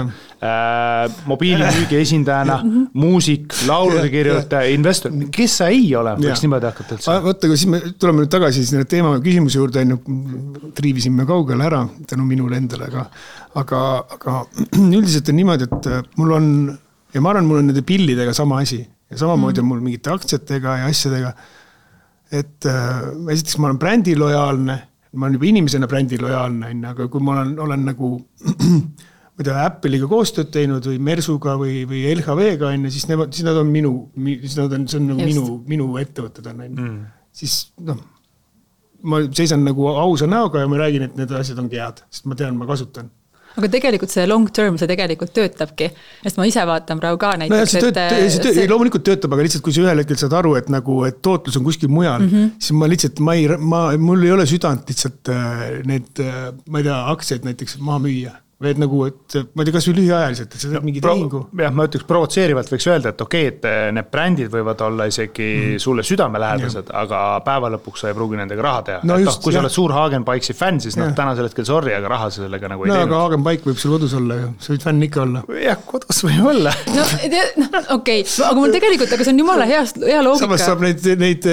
mobiilimüügi esindajana, muusik, laulude kirjutaja, investor, kes sa ei ole, võiks niimoodi hakata üldse? Võtta, kui siis me tuleme nüüd tagasi selle teema küsimuse juurde, triivisime kaugele ära tänu minule endale, aga üldiselt on niimoodi, et mul on, ja ma arvan, mul on nende pillidega sama asi ja samamoodi on mul mingite aktsiatega ja asjadega, et esiteks ma olen brändi lojaalne, ma olen juba inimesena brändi lojaalne, aga kui ma olen nagu Apple'iga koostööd teinud või Mersuga või LHV-ga, siis nad on see on nagu minu ettevõtted on. Siis ma seisan nagu ausa näoga ja ma räägin, et need asjad ongi head, sest ma tean, ma kasutan. Aga tegelikult see long term, see tegelikult töötabki, sest ma ise vaatan praegu ka näiteks. Loomulikult töötab, aga lihtsalt kui sa ühel hetkel saad aru, et tootlus on kuskil mujal, siis ma lihtsalt, mul ei ole südant lihtsalt need, ma ei tea, aktsiaid näiteks maha müüa. Või nagu, et ma ei tea, kas või lühiajaliselt, et see on mingi tehingu. Jah, ma ütleks provotseerivalt võiks öelda, et okei, et need brändid võivad olla isegi sulle südamelähedased, aga päeva lõpuks sa ei pruugi nendega raha teha. No just, kui sa oled suur Hagenbike'i fänn, siis täna selle hetkel sorry, aga raha sellega nagu ei teinud. Aga Hagenbike võib sul kodus olla ju, sa võid fänn ikka olla. Jah, kodus võib olla. Okei, aga mul tegelikult, aga see on jumala hea loogika. Samas saab neid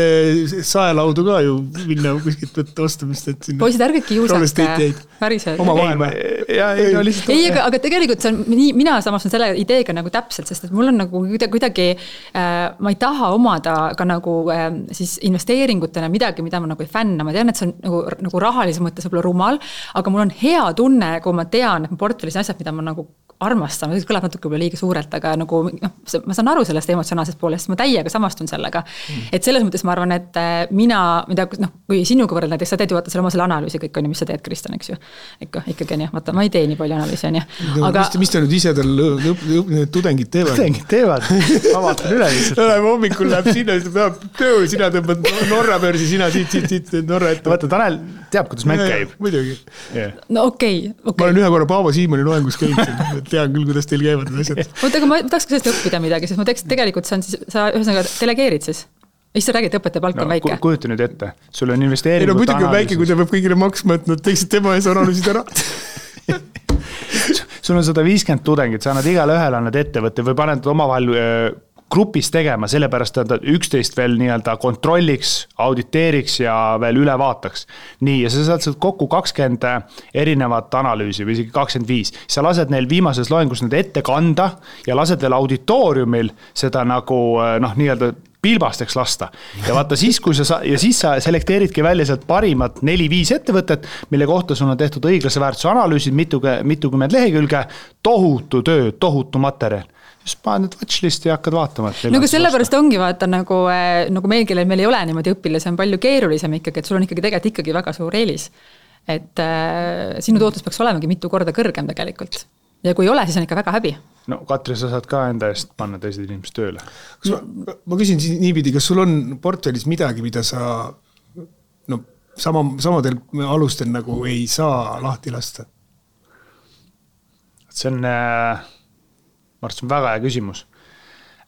saelaudu ka ju minna kuskilt võtta ostamist, et sinna. Poisid, ärge kiusake, päriselt. Ei, aga tegelikult see on, mina samas on selle ideega nagu täpselt, sest et mul on nagu kuidagi, ma ei taha omada ka nagu siis investeeringutena midagi, mida ma nagu ei fänna. Ma tean, et see on nagu rahalise mõttes võib-olla rumal, aga mul on hea tunne, kui ma tean, et portfellis asjad, mida ma nagu armastan, see kõlab natuke võib-olla liiga suurelt, aga nagu, ma saan aru sellest emotsionaalsest poolest, ma täiega samastun sellega. Et selles mõttes ma arvan, et kui sinuga võrrelda, näiteks sa teed ju vaata selle oma selle analüüsi kõik on, mis sa teed, Kristjan, eks ju. Ikkagi on jah, vaata, ma ei tee nii palju analüüsi, on jah. Aga... Mis te nüüd ise tal tudengid teevad? Tudengid teevad, ma vaatan üle lihtsalt. Hommikul läheb sinna, töö, sina tõmbad Norra börsi, sina siit Norra ette. Vaata, Tanel teab, kuidas mäng käib. Muidugi. No okei. Ma olen ühe korra Paavo Siimoni loengus käinud, tean küll, kuidas teil käivad need asjad. Aga ma tahaks ka sellest õppida midagi, sest ma tegelikult see on siis, sa ühesõnaga delegeerid siis. Mis sa räägid, õpetaja palk on väike? Kujuta nüüd ette, sul on investeeringut analüüsis. Muidugi on väike, kui ta peab kõigile maksma, et nad teeksid tema ees analüüsid ära. Sul on 150 tudengid, sa annad igale ühele annad ettevõtte või paned omavahel grupis tegema, sellepärast et üksteist veel nii-öelda kontrolliks, auditeeriks ja veel üle vaataks. Nii, ja sa saad kokku 20 erinevat analüüsi või isegi 25. Sa lased neil viimases loengus need ette kanda ja lased veel auditooriumil seda nagu nii-öelda pilbasteks lasta. Ja vaata siis, kui sa selekteeridki välja sealt parimat 4-5 ettevõtet, mille kohta sul on tehtud õiglase väärtuse analüüsid, mitukümmend lehekülge, tohutu töö, tohutu materjal. Just paned need watchlist ja hakkad vaatama. Aga sellepärast ongi vaata nagu meil, kellel meil ei ole niimoodi õpilasi, on palju keerulisem ikkagi, et sul on ikkagi väga suur eelis. Et sinu tootlus peaks olemagi mitu korda kõrgem tegelikult. Ja kui ei ole, siis on ikka väga häbi. No Katri, sa saad ka enda eest panna teised inimesed tööle. Ma küsin niipidi, kas sul on portfellis midagi, mida sa samadel alustel nagu ei saa lahti lasta? See on... Ma arvan, väga hea küsimus.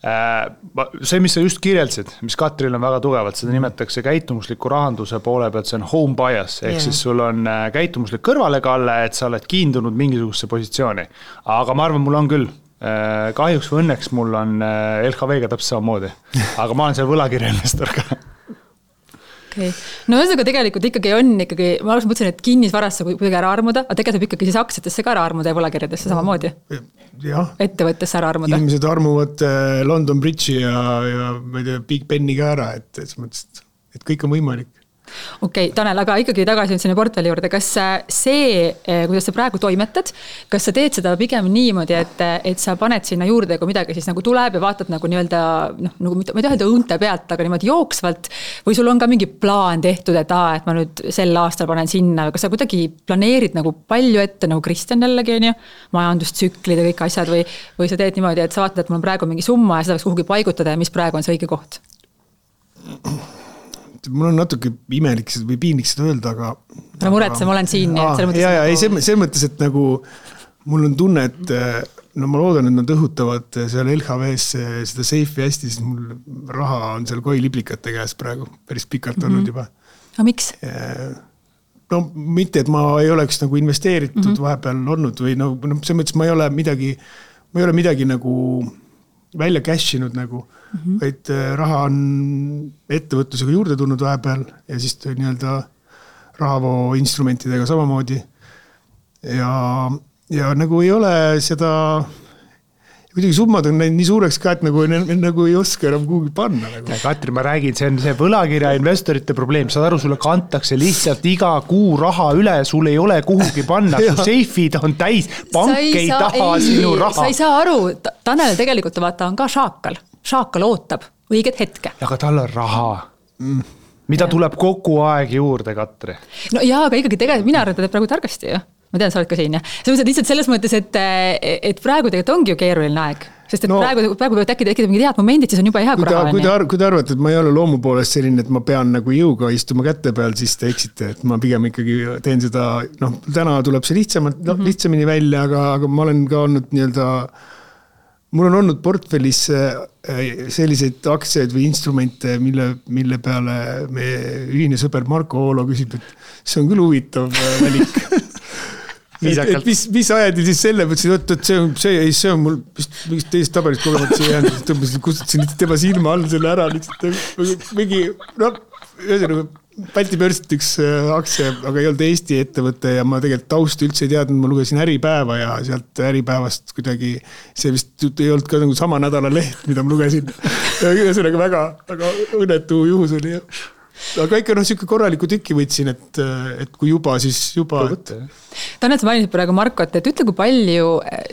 See, mis sa just kirjeldasid, mis Katril on väga tugevalt, seda nimetatakse käitumusliku rahanduse poole pealt, see on home bias, ehk siis sul on käitumuslik kõrvalekalle, et sa oled kiindunud mingisugusesse positsiooni. Aga ma arvan, mul on küll. Kahjuks või õnneks mul on LHV-ga täpselt samamoodi, aga ma olen seal võlakirja investor ka. Okay. No ühesõnaga tegelikult ikkagi on ma alguses mõtlesin, et kinnisvarasse kuidagi ära armuda, aga tegelikult ikkagi siis aktsiatesse ka ära armuda ja võlakirjadesse samamoodi. Ja. Ettevõttesse ära armuda. Inimesed armuvad London Bridge'i ja ma ei tea, Big Beni ka ära, et kõik on võimalik. Okei, Tanel, aga ikkagi tagasi sinna portfelli juurde, kas see, kuidas sa praegu toimetad, kas sa teed seda pigem niimoodi, et sa paned sinna juurde, kui midagi siis nagu tuleb ja vaatad nagu nii-öelda, nagu ma ei taha õunte pealt, aga niimoodi jooksvalt, või sul on ka mingi plaan tehtud, et ma nüüd sel aastal panen sinna, kas sa kuidagi planeerid nagu palju ette, nagu Kristjan jällegi on ju, majandustsüklid ja kõik asjad, või sa teed niimoodi, et sa vaatad, et mul on praegu mingi summa ja seda võiks kuhugi paigutada ja mis praegu on see õige koht? Mul on natuke imelik või piinlik seda öelda, aga... Ära muretse, ma olen siin. See mõttes, et nagu mul on tunne, et ma loodan, et nad õhutavad seal LHV-s seda seifi hästi, siis mul raha on seal koiliblikate käes praegu päris pikalt olnud juba. Aga miks? No mitte, et ma ei oleks nagu investeeritud vahepeal olnud või see mõttes ma ei ole midagi nagu välja cashinud nagu, vaid raha on ettevõtlusega juurde tulnud vahepeal ja siis nii-öelda rahavoo instrumentidega samamoodi. Ja nagu ei ole seda, kuidagi summad on nii suureks ka, et nagu ei oska enam kuhugi panna. Nagu. Katri, ma räägin, see on see võlakirja investorite probleem. Saad aru, sulle kantakse lihtsalt iga kuu raha üle, sul ei ole kuhugi panna, su seifid on täis, pank ei taha sinu raha. Sa ei saa aru, Tanel tegelikult vaata on ka šaakal. Šaakal ootab õiget hetke. Aga tal on raha. Mida tuleb kogu aeg juurde, Katri? No jaa, aga ikkagi tegelikult mina arvan, et praegu targasti ju. Ma tean, sa oled ka siin. Lihtsalt selles mõttes, et praegu tegelikult ongi ju keeruline aeg. Sest et praegu peavad tekkida mingi head momendid, siis on juba hea raha. Kui te arvate, et ma ei ole loomu poolest selline, et ma pean nagu jõuga istuma kätte peal, siis te eksite, et ma pigem ikkagi teen seda, täna tuleb see lihtsamini välja, aga ma olen ka olnud nii-öelda mul on olnud portfellis selliseid aktsiaid või instrumente, mille peale meie ühine sõber Marko Oolo küsib, et see on küll huvitav valik. et mis ajadi siis selle, et see on mul mingist teist taberist kogemata see jäänud, kustutasin tema silma all selle ära, mingi, ühesõnaga, Balti börsit üks aktsia, aga ei olnud Eesti ettevõte ja ma tegelikult taustu üldse ei teadnud, ma lugesin Äripäeva ja sealt Äripäevast kuidagi, see vist ei olnud ka nagu sama nädala leht, mida ma lugesin. Ühesõnaga väga õnnetu juhus oli. Aga ikka siuke korraliku tükki võtsin, et kui juba, siis juba. Tanel, sa mainisid praegu Markot, et ütle, kui palju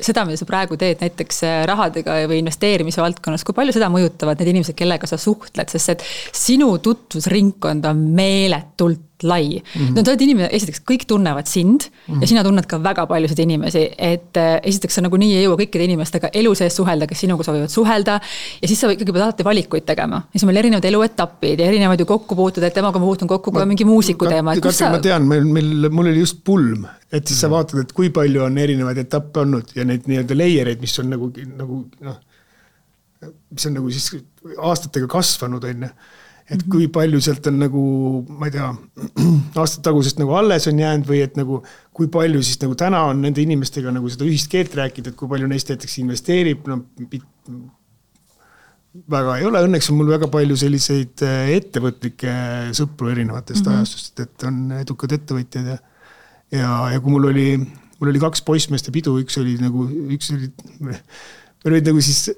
seda, mida sa praegu teed näiteks rahadega või investeerimise valdkonnas, kui palju seda mõjutavad need inimesed, kellega sa suhtled, sest et sinu tutvusringkond on meeletult lai. No sa oled inimene, esiteks kõik tunnevad sind ja sina tunned ka väga paljusid inimesi, et esiteks sa nagu nii ei jõua kõikide inimestega elu sees suhelda, kes sinuga soovivad suhelda ja siis sa ikkagi pead alati valikuid tegema. Ja siis meil erinevad eluetapid ja erinevad ju kokkupuutud, et temaga ma puutun kokku ka mingi muusiku teema. Ma tean, mul oli just pulm, et siis sa vaatad, et kui palju on erinevaid etappe olnud ja neid nii-öelda layereid, mis on mis on nagu siis aastatega kasvanud, et kui palju sealt on nagu, ma ei tea, aastat tagusest nagu alles on jäänud või et nagu, kui palju siis nagu täna on nende inimestega nagu seda ühist keelt rääkida, et kui palju neist näiteks investeerib, väga ei ole, õnneks on mul väga palju selliseid ettevõtlikke sõpru erinevatest ajastust, et on edukad ettevõtjad ja kui mul oli 2 poissmeeste pidu, üks oli siis,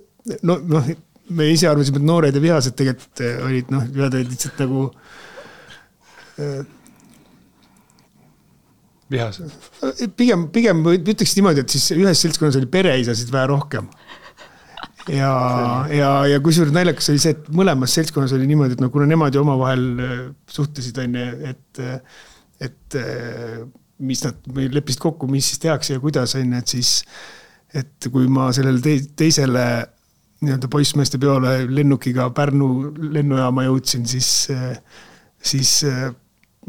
me ise arvasime, et noored ja vihased tegelikult olid, lihtsalt nagu vihased. Pigem ütleks niimoodi, et siis ühes seltskonnas oli pereisasid vähe rohkem. Ja kusjuures naljakas oli see, et mõlemas seltskonnas oli niimoodi, et kuna nemad ju omavahel suhtlesid, et mis nad leppisid kokku, mis siis tehakse ja kuidas, et siis, et kui ma sellele teisele nii-öelda poissmeeste peole lennukiga Pärnu lennujaama jõudsin, siis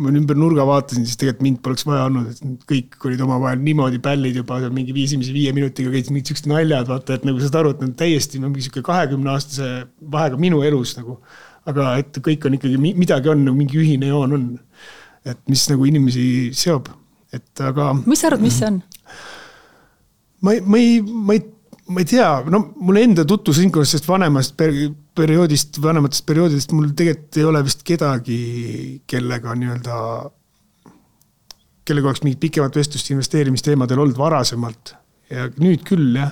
ma ümber nurga vaatasin, siis tegelikult mind poleks vaja olnud, et kõik olid omavahel niimoodi pällid juba mingi 5 minutiga käisid mingid sellised naljad, vaata, et nagu sa aru, et täiesti mingi 20-aastase vahega minu elus nagu, aga et kõik on ikkagi, midagi on, nagu mingi ühine joon on, et mis nagu inimesi seob, et aga... Mis sa arvad, mis see on? Ma ei tea, no mul enda tutvusringkonnast vanematest perioodidest mul tegelikult ei ole vist kedagi, kellega oleks mingit pikemat vestlust investeerimisteemadel olnud varasemalt. Ja nüüd küll, jah,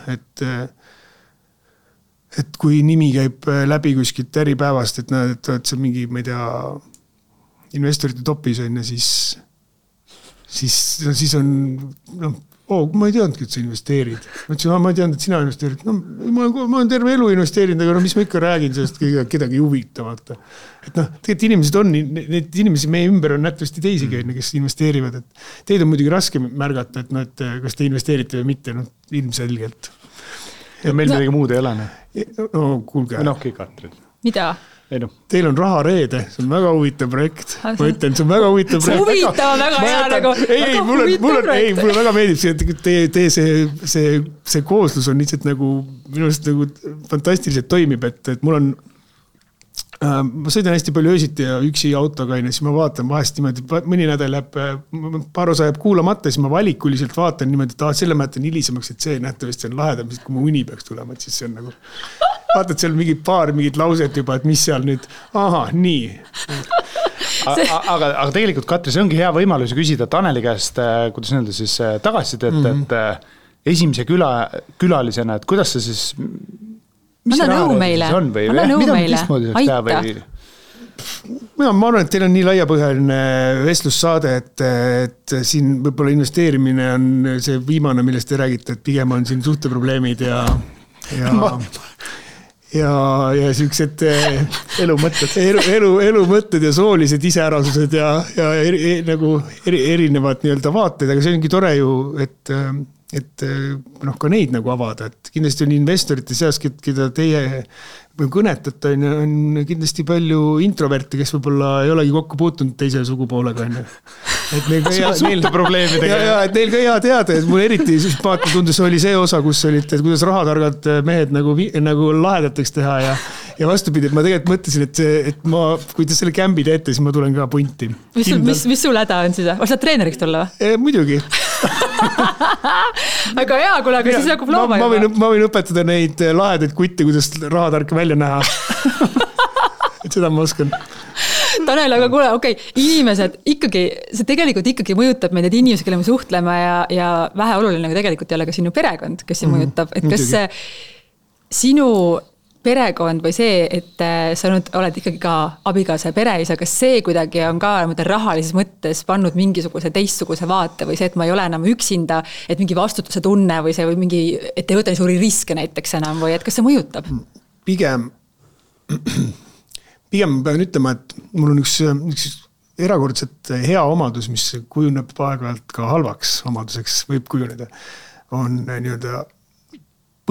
et kui nimi käib läbi kuskilt äripäevast, et näed, et see mingi, ma ei tea, investorite topis on ja siis on, ma ei teadnudki, et sa investeerid. Ma ütlesin, ma ei teadnud, et sina investeerid. No, ma olen terve elu investeerinud, aga mis ma ikka räägin sellest kedagi huvitavalt. Et tegelikult inimesed on, need inimesi meie ümber on nähtavasti teisigi, kes investeerivad. Et teid on muidugi raske märgata, et kas te investeerite või mitte, ilmselgelt. Ja meil midagi muud ei ole. No, kuulge. Katrin. Mida? Teil on raha reede, see on väga huvitav projekt. Ma ütlen, see on väga huvitav projekt. See huvitav on väga hea nagu. Mulle väga meeldib, et see kooslus on lihtsalt nagu, minu arust nagu fantastiliselt toimib, et mul on, ma sõidan hästi palju öösiti ja üksi autoga, siis ma vaatan vahest niimoodi, mõni nädal läheb, paar osa jääb kuulamata, siis ma valikuliselt vaatan niimoodi, et selle ma jätan hilisemaks, et see nähtavasti on lahedam, kui mu uni peaks tulema, et siis see on nagu... Vaatad seal mingid lauset juba, et mis seal nüüd, nii. Aga tegelikult, Katri, see ongi hea võimalus küsida Taneli käest, kuidas nende siis tagasid, et esimese külalisena, et kuidas see siis... Anna nõu meile. Aita. Ma arvan, et teil on nii laiapõhjaline vestlussaade, et siin võib-olla investeerimine on see viimane, millest te räägite, et pigem on siin suhteprobleemid ja sellised elumõtted ja soolised iseärasused ja nagu erinevad vaated, aga see ongi tore ju, et ka neid nagu avada, et kindlasti on investorite seas, keda teie kõnetate, on kindlasti palju introverte, kes võib-olla ei olegi kokku puutunud teise sugupoolega. Et neil ka hea teada, et mul eriti sümpaatne tundus oli see osa, kus olid, et kuidas rahatargad mehed nagu lahedateks teha ja vastupidi, et ma tegelikult mõtlesin, et kui te selle kämbi teete, siis ma tulen ka punti. Mis sul häda on siis? Saad treeneriks tulla või? Muidugi. Aga hea, kuule, aga siis hakkab looma juba. Ma võin õpetada neid lahedaid kutte, kuidas rahatarka välja näha. Et seda ma oskan. Tanel, aga kuule, inimesed ikkagi, see tegelikult ikkagi mõjutab meid, et inimesed, kelle me suhtleme ja vähe oluline tegelikult ei ole ka sinu perekond, kes see mõjutab. Et kas sinu perekond või see, et sa nüüd oled ikkagi ka abikaasa ja pereisa, kas see kuidagi on ka rahalises mõttes pannud mingisuguse teistsuguse vaate või see, et ma ei ole enam üksinda, et mingi vastutuse tunne või see või mingi, et ei võta nii suuri riske näiteks enam või et kas see mõjutab? Pigem pean ütlema, et mul on üks erakordselt hea omadus, mis kujuneb aeg-ajalt ka halvaks omaduseks, võib kujuneda, on nii-öelda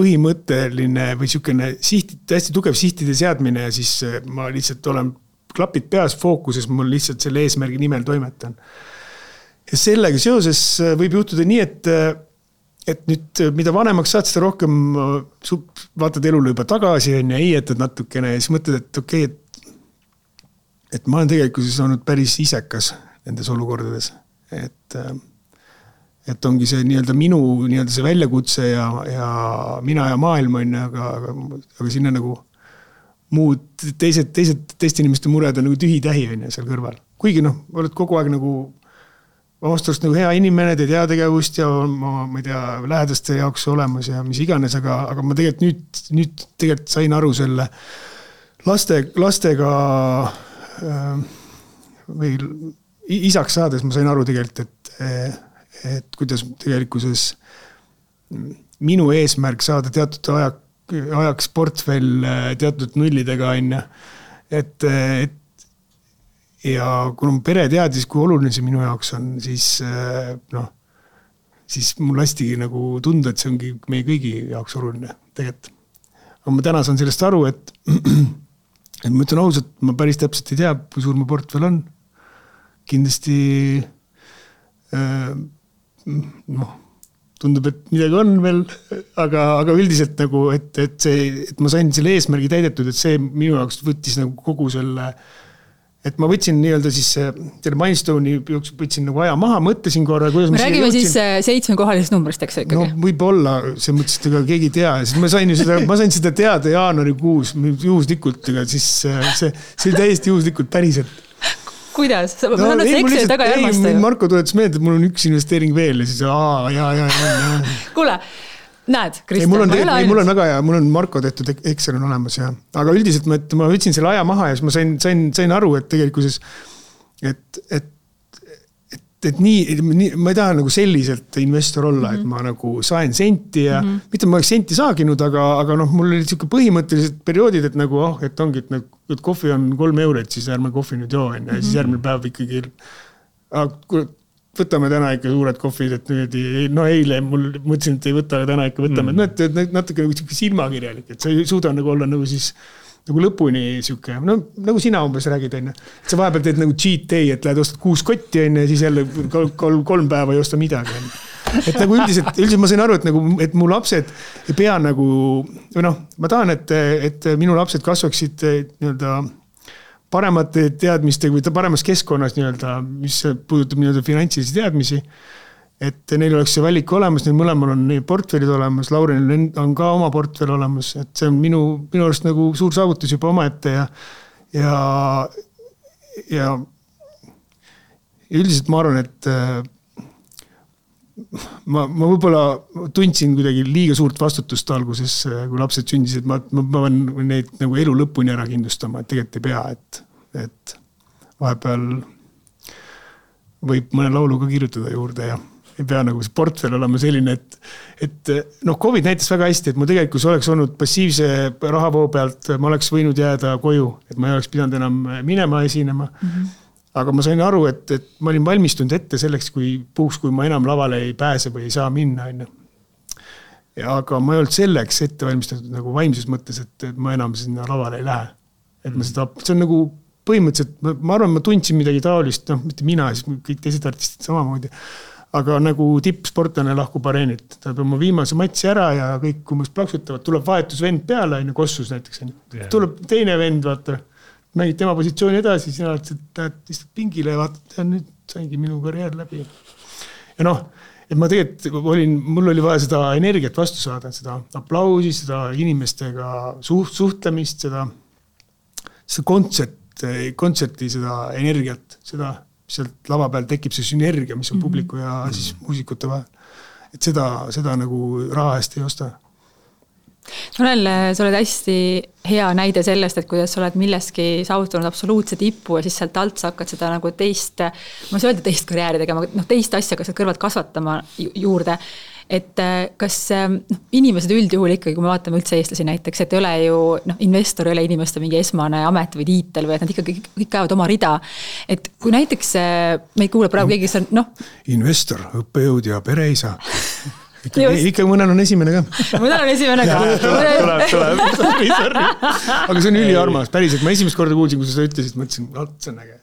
põhimõtteline või niisugune hästi tugev sihtide seadmine ja siis ma lihtsalt olen klapid peas fookuses, mul lihtsalt selle eesmärgi nimel toimetan. Ja sellega seoses võib juhtuda nii, et nüüd mida vanemaks saad, seda rohkem vaatad elule juba tagasi ja heietad natukene ja siis mõtled, et et ma olen tegelikult olnud päris isekas nendes olukordades, et ongi see nii-öelda minu nii-öelda see väljakutse ja mina ja maailm on, aga sinna nagu muud teiste inimeste mured on nagu tühi-tähi on seal kõrval. Kuigi oled kogu aeg nagu vasturust nagu hea inimene, teed heategevust ja ma ei tea, lähedaste jaoks olemas ja mis iganes, aga ma tegelikult nüüd tegelikult sain aru selle lastega või isaks saades ma sain aru tegelikult, et kuidas tegelikkuses minu eesmärk saada teatud ajaks portfell teatud nullidega on, ja kui mu pere teadis, kui oluline see minu jaoks on, siis mul hästi nagu tunda, et see ongi meie kõigi jaoks oluline tegelikult. Aga ma täna saan sellest aru, et ma ütlen ausalt, ma päris täpselt ei tea, kui suur mu portfell on. kindlasti tundub, et midagi on veel, aga üldiselt nagu, et ma sain selle eesmärgi täidetud, et see minu jaoks võttis nagu kogu selle, et ma võtsin nii-öelda siis selle Milestone'i jooksul võtsin nagu aja maha, mõtlesin korra, kuidas me räägime siis 7-kohalisest numbrist, eks ikkagi? No võib-olla, see mõttes, et ega keegi ei tea, siis ma sain seda teada jaanuarikuus juhuslikult, ega siis see oli täiesti juhuslikult päriselt. Kuidas? Ma saan, et see Exceli taga ei armasta ju. Marko tuletas meelde, et mul on üks investeering veel ja siis Kuule, näed, Kristjan, mul on väga hea, mul on Marko tehtud Excel on olemas ja, aga üldiselt ma võtsin selle aja maha ja siis ma sain aru, et tegelikuses, et nii, ma ei taha nagu selliselt investor olla, et ma nagu sain senti ja mitte ma oleks senti saaginud, aga mul oli selline põhimõttelised perioodid, et nagu, et ongi, et kohvi on 3 €, siis ärme kohvi nüüd joo, ja siis järgmine päev ikkagi, võtame täna ikka suured kohvid, et eile mul mõtlesin, et ei võta, aga täna ikka võtame, et natuke nagu silmakirjalik, et sa ei suuda nagu olla nagu siis nagu lõpuni siuke, nagu sina umbes räägid, on. Sa vahepeal teed nagu cheat day, et lähed ostad 6 kotti, on, ja siis jälle 3 päeva ei osta midagi. Et nagu üldiselt ma sain aru, et mu lapsed ei pea nagu, ma tahan, et minu lapsed kasvaksid nii-öelda paremate teadmistega või paremas keskkonnas nii-öelda, mis puudutab nii-öelda finantsilisi teadmisi. Et neil oleks see valik olemas, neil mõlemal on need portfellid olemas, Laurenil on ka oma portfell olemas, et see on minu arust nagu suur saavutus juba omaette ja üldiselt ma arvan, et ma võib-olla tundsin kuidagi liiga suurt vastutust alguses, kui lapsed sündisid, ma pean neid nagu elu lõpuni ära kindlustama, et tegelikult ei pea, et vahepeal võib mõne laulu ka kirjutada juurde ja ei pea nagu see portfell olema selline, et COVID näitas väga hästi, et ma tegelikult oleks olnud passiivse rahavoo pealt, ma oleks võinud jääda koju, et ma ei oleks pidanud enam minema esinema. Aga ma sain aru, et ma olin valmistunud ette selleks, kui ma enam lavale ei pääse või ei saa minna. Aga ma ei olnud selleks ette valmistatud nagu vaimses mõttes, et ma enam sinna lavale ei lähe. Et see on nagu põhimõtteliselt, ma arvan, ma tundsin midagi taolist, mitte mina, siis kõik teised artistid samamoodi. Aga nagu tippsportlane lahkub areenit, ta peab oma viimase matsi ära ja kõik umbes plaksutavad, tuleb vahetusvend peale, Kossus näiteks. Tuleb teine vend, vaata, mängid tema positsiooni edasi, sina lähed istud pingile ja vaatad, ja nüüd saingi minu karjäär läbi. Ja et ma tegelikult mul oli vaja seda energiat vastu saada, seda aplausi, seda inimestega suhtlemist, seda kontserti, seda energiat, seda sealt lava peal tekib see sünergia, mis on publiku ja siis muusikute vahel. Et seda nagu raha eest ei osta. Tanel, sa oled hästi hea näide sellest, et kuidas sa oled milleski saavutanud absoluutse tipu ja siis sealt alt sa hakkad seda nagu teist karjääri tegema, teist asja, kas sa kõrvalt kasvatama juurde. Et kas inimesed üldjuhul ikkagi, kui me vaatame üldse eestlasi näiteks, et ei ole ju, investor ei ole inimeste mingi esmane amet või tiitel või et nad ikkagi kõik käivad oma rida. Et kui näiteks meid kuuleb praegu keegi, kes on, investor, õppejõud ja pereisa. Ikka mõnel on esimene ka. Mõnel on esimene ka. Tuleb. Aga see on üliarmas, päriselt. Ma esimest korda kuulsin, kui sa ütlesid, mõtlesin, see on äge.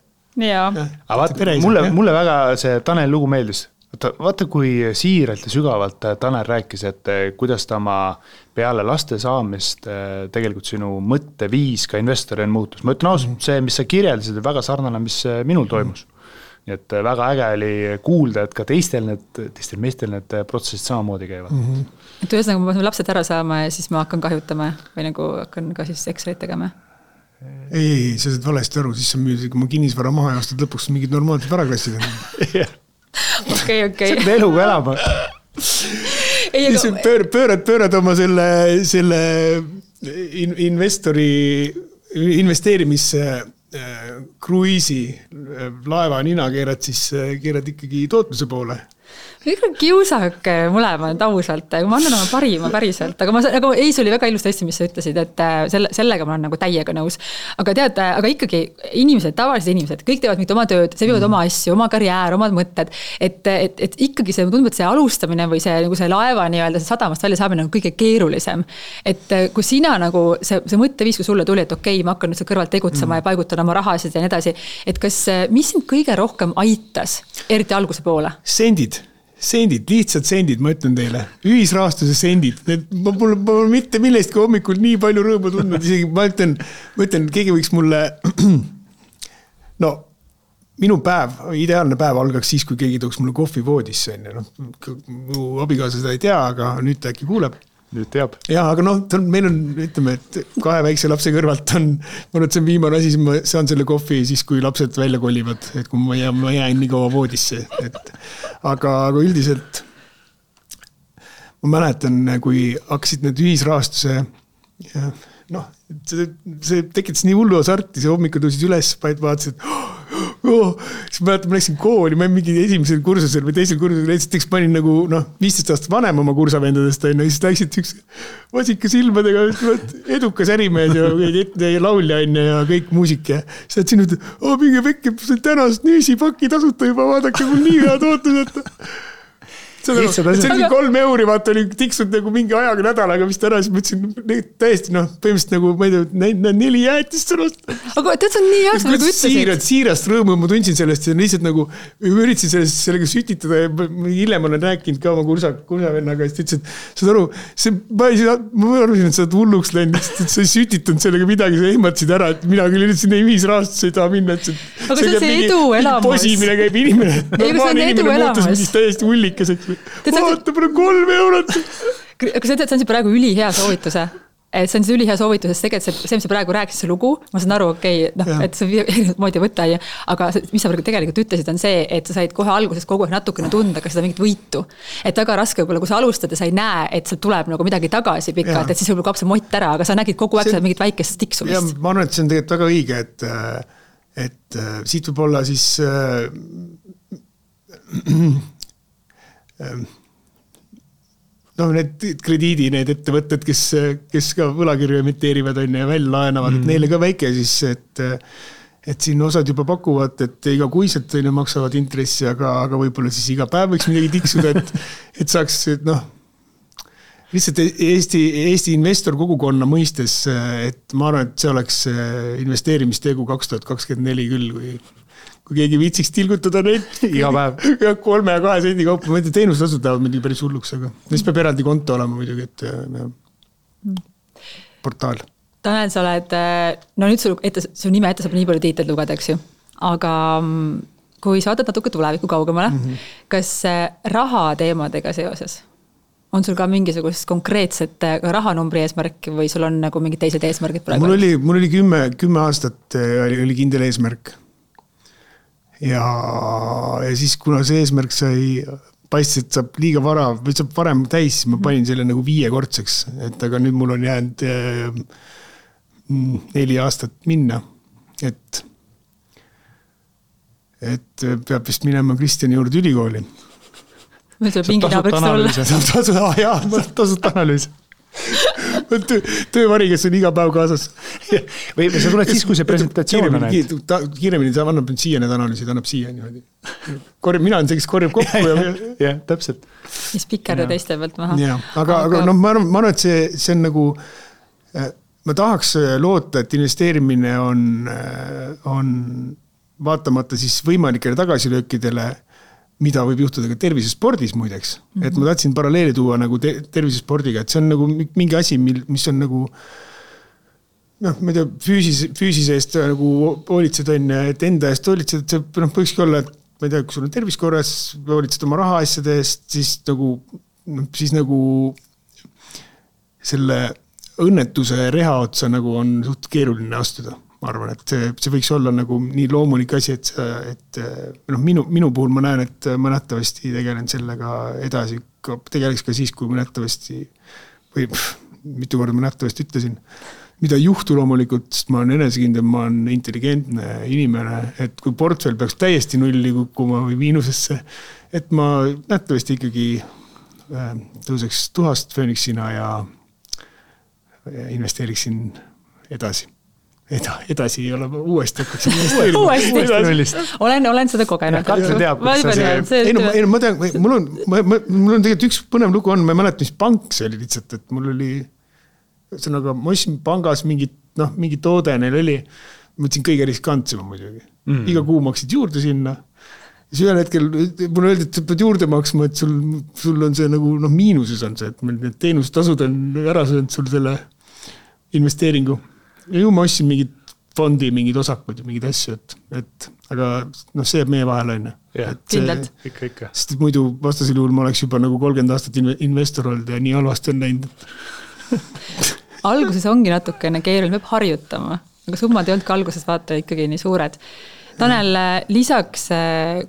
Aga vaata, mulle väga see Tanel lugu meeldis. Vaata, kui siiralt ja sügavalt Tanel rääkis, et kuidas ta oma peale laste saamist tegelikult sinu mõtteviis ka investorina muutus. Ma ütlen ausalt, see, mis sa kirjeldasid, väga sarnane, mis minul toimus. Nii et väga äge oli kuulda, et ka teistel meestel need protsessid samamoodi käivad. Et ühesõnaga, ma pean lapsed ära saama ja siis ma hakkan kahjutama või nagu hakkan ka siis Excelit tegema? Ei, sa saad valesti aru, siis sa müüd, kui ma kinnisvara maha ja aastad lõpuks mingid normaalsed varaklassid. Okay. See on eluga elama. Pöörad oma selle investeerimisse kruiisi laeva nina keerad ikkagi tootluse poole. kiusake mõlemad ausalt, ma annan oma parima päriselt, aga Eis oli väga ilusti hästi, mis sa ütlesid, et sellega ma olen nagu täiega nõus. Aga tead, aga ikkagi inimesed, tavalised inimesed, kõik teevad mitte oma tööd, see viivad oma asju, oma karjäär, omad mõtted, et ikkagi see tundub, et see alustamine või see, nagu see laeva nii-öelda see sadamast välja saamine on kõige keerulisem. Et kui sina nagu see mõtteviis, kui sulle tuli, et okei, ma hakkan nüüd seal kõrvalt tegutsema ja paigutan oma rahasid ja nii edasi, et kas, mis sind kõige rohkem aitas, eriti alguse poole? Sendid, lihtsalt sendid, ma ütlen teile. Ühisrahastuse sendid. Ma pole mitte millestki hommikul nii palju rõõmu tundnud. Isegi ma ütlen, keegi võiks mulle... No, minu päev, ideaalne päev algaks siis, kui keegi tooks mulle kohvi voodisse. Mu abikaasa seda ei tea, aga nüüd ta äkki kuuleb. Nüüd teab. Ja, aga meil on, ütleme, et 2 väikse lapse kõrvalt on, ma arvan, et see on viimane asi, siis ma saan selle kohvi siis, kui lapsed välja kolivad, et kui ma jään nii kaua voodisse. Aga üldiselt ma mäletan, kui hakkasid need ühisrahastuse, see tekitas nii hullu asarti, see hommikul tõusid üles, vaatasid, siis ma läksin kooli, ma mingi esimesel kursusel või teisel kursusel, esiteks panin nagu 15 aastat vanem oma kursavendadest, ja siis läksid üks vasika silmadega, edukas ärimees ja laulja ja kõik muusik ja siis nad sinu, minge vekke, tänast nüüsipaki tasuta juba, vaadake, mul nii head ootused. See oli 3 euri, vaata oli tiksud nagu mingi ajaga nädalaga, mis täna siis mõtlesin täiesti, põhimõtteliselt nagu, ma ei tea, 4 jäätist sõnast. Aga tead, see on nii hea, nagu ütlesid. Siirast rõõmu ma tundsin sellest ja lihtsalt nagu üritasin sellega sütitada ja hiljem olen rääkinud ka oma kursavennaga, siis ütlesin, saad aru, ma arvasin, et sa oled hulluks läinud, et sa ei sütitanud sellega midagi, sa ehmatasid ära, et mina küll üritasin ühisrahastus ei taha minna, et aga see on see edu elamus. Posimine käib inimene. Normaalne inimene muutus täiesti hullikeseks. Vaata, palju 3 eurot. Aga see on see praegu ülihea soovituse. See on see ülihea soovitus, sest tegelikult see, mis sa praegu rääkisid, see lugu, ma saan aru, et see erinevat moodi võtta, aga mis sa tegelikult ütlesid, on see, et sa said kohe alguses kogu aeg natukene tunda, kas seda mingit võitu. Et väga raske võib-olla, kui sa alustad ja sa ei näe, et seal tuleb nagu midagi tagasi pikalt, et siis võib-olla kaob see mott ära, aga sa nägid kogu aeg mingit väikest tiksumist. Ja ma arvan, et see on tegelikult väga õige, et siit võib olla siis need krediidi, need ettevõtted, kes ka võlakirju emiteerivad ja välja laenavad, et neile ka väike siis, et siin osad juba pakuvad, et iga kuiselt maksavad intressi, aga võib-olla siis iga päev võiks midagi tiksuda, et saaks, lihtsalt Eesti investor kogukonna mõistes, et ma arvan, et see oleks investeerimistegu 2024 küll, kui keegi viitsiks tilgutada neid iga päev. 3 ja 2 sendi kaupa, ma ei tea, teenustasud tahavad midagi päris hulluks, aga siis peab eraldi konto olema muidugi, et portaal. Tanel, sa oled, nüüd su nime ette saab nii palju tiitled lugeda, eks ju, aga kui sa vaatad natuke tuleviku kaugemale, kas raha teemadega seoses on sul ka mingisugust konkreetset rahanumbri eesmärk või sul on nagu mingid teised eesmärgid praegu? Mul oli 10 aastat oli kindel eesmärk. Ja siis, kuna see eesmärk sai paistis, et saab liiga vara või saab varem täis, siis ma panin selle nagu 5-kordseks, et aga nüüd mul on jäänud 4 aastat minna, et peab vist minema Kristjani juurde ülikooli. Meil tuleb mingi naabriks olla. Tasut analüüs. Töövari, kes on iga päev kaasas. Või sa tuled siis, kui see presentatsioon on. Kiiremini ta annab siia need analüüsid, annab siia niimoodi. Mina olen see, kes korjab kokku. Jah, täpselt. Mis pikkerde teiste pealt maha. Aga ma arvan, et see on nagu, ma tahaks loota, et investeerimine on vaatamata siis võimalikele tagasilöökidele, mida võib juhtuda ka tervisespordis muideks. Et ma tahtsin paralleeli tuua nagu tervisespordiga, et see on nagu mingi asi, mis on nagu ma ei tea, füüsise eest nagu hoolitsed on, et enda eest hoolitsed, et see võikski olla, et ma ei tea, kui sul on terviskorras, hoolitsed oma rahaasjade eest, siis nagu selle õnnetuse reha otsa nagu on suht keeruline astuda. Ma arvan, et see võiks olla nagu nii loomulik asi, et minu puhul ma näen, et ma nähtavasti tegelen sellega edasi, tegeleks ka siis, kui ma nähtavasti, või mitu korda ma nähtavasti ütlesin, mida ei juhtu loomulikult, sest ma olen enesekindel, ma olen intelligentne inimene, et kui portfell peaks täiesti nulli kukkuma või miinusesse, et ma nähtavasti ikkagi tõuseks tuhast föönixina ja investeeriksin edasi. Edasi ei ole, uuesti hakkaks investeerima. Olen seda kogenud. Katri teab, kus see. Ma tean, mul on tegelikult üks põnev lugu on, ma ei mäleta, mis pank see oli lihtsalt, et mul oli, ma ostsin pangas mingi toode neil oli, ma võtsin kõige riskantsema muidugi. Iga kuu maksid juurde sinna. Siis ühel hetkel mulle öeldi, et sa pead juurde maksma, et sul on see nagu miinuses on see, et meil need teenustasud on ära söönud sul selle investeeringu. Ja ju ma ostsin mingid fondi, mingid osakud ja mingid asju, aga see jääb meie vahel on. Kindlalt. Ikka. Sest muidu vastasel juhul ma oleks juba nagu 30 aastat investor olnud ja nii halvasti on näinud. Alguses ongi natukene keeruline, peab harjutama, aga summad ei olnud ka alguses vaata ikkagi nii suured. Tanel, lisaks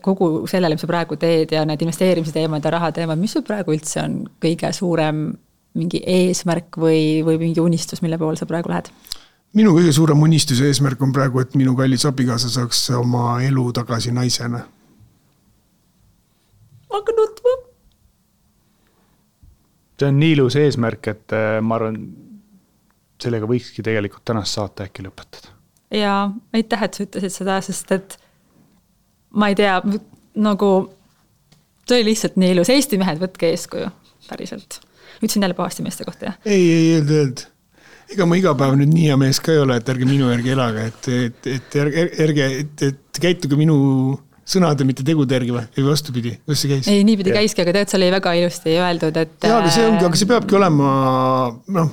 kogu sellele, mis sa praegu teed ja need investeerimise teemad ja raha teemad, mis sul praegu üldse on kõige suurem mingi eesmärk või mingi unistus, mille poole sa praegu lähed? Minu kõige suurem unistuse eesmärk on praegu, et minu kallis abikaasa saaks oma elu tagasi naisena. Aga nutma. See on nii ilus eesmärk, et ma arvan, sellega võikski tegelikult tänast saate äkki lõpetada. Ja aitäh, et sa ütlesid seda, sest et ma ei tea, nagu see oli lihtsalt nii ilus. Eesti mehed, võtke eeskuju, päriselt. Ütlesin jälle pahasti meeste kohta, jah? Ei, öelda. Ega ma iga päev nüüd nii hea mees ka ei ole, et ärge minu järgi elaga, et käituge minu sõnade, mitte tegude järgi või vastupidi, kus see käis? Ei, niipidi käiski, aga tead, seal oli väga ilusti öeldud, et... Jaa, aga see peabki olema,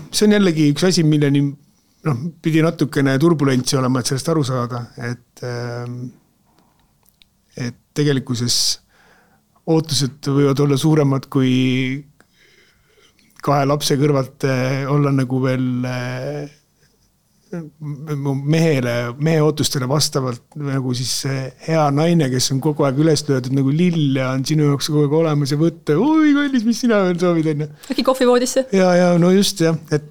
see on jällegi üks asi, milleni pidi natukene turbulentsi olema, et sellest aru saada, et tegelikkuses ootused võivad olla suuremad kui 2 lapse kõrvalt olla nagu veel mehe ootustele vastavalt nagu siis hea naine, kes on kogu aeg üles löödud nagu lill ja on sinu jaoks kogu aeg olemas ja võtta, oi kallis, mis sina veel soovid enne. Äkki kohvivoodisse? Ja, no just jah, et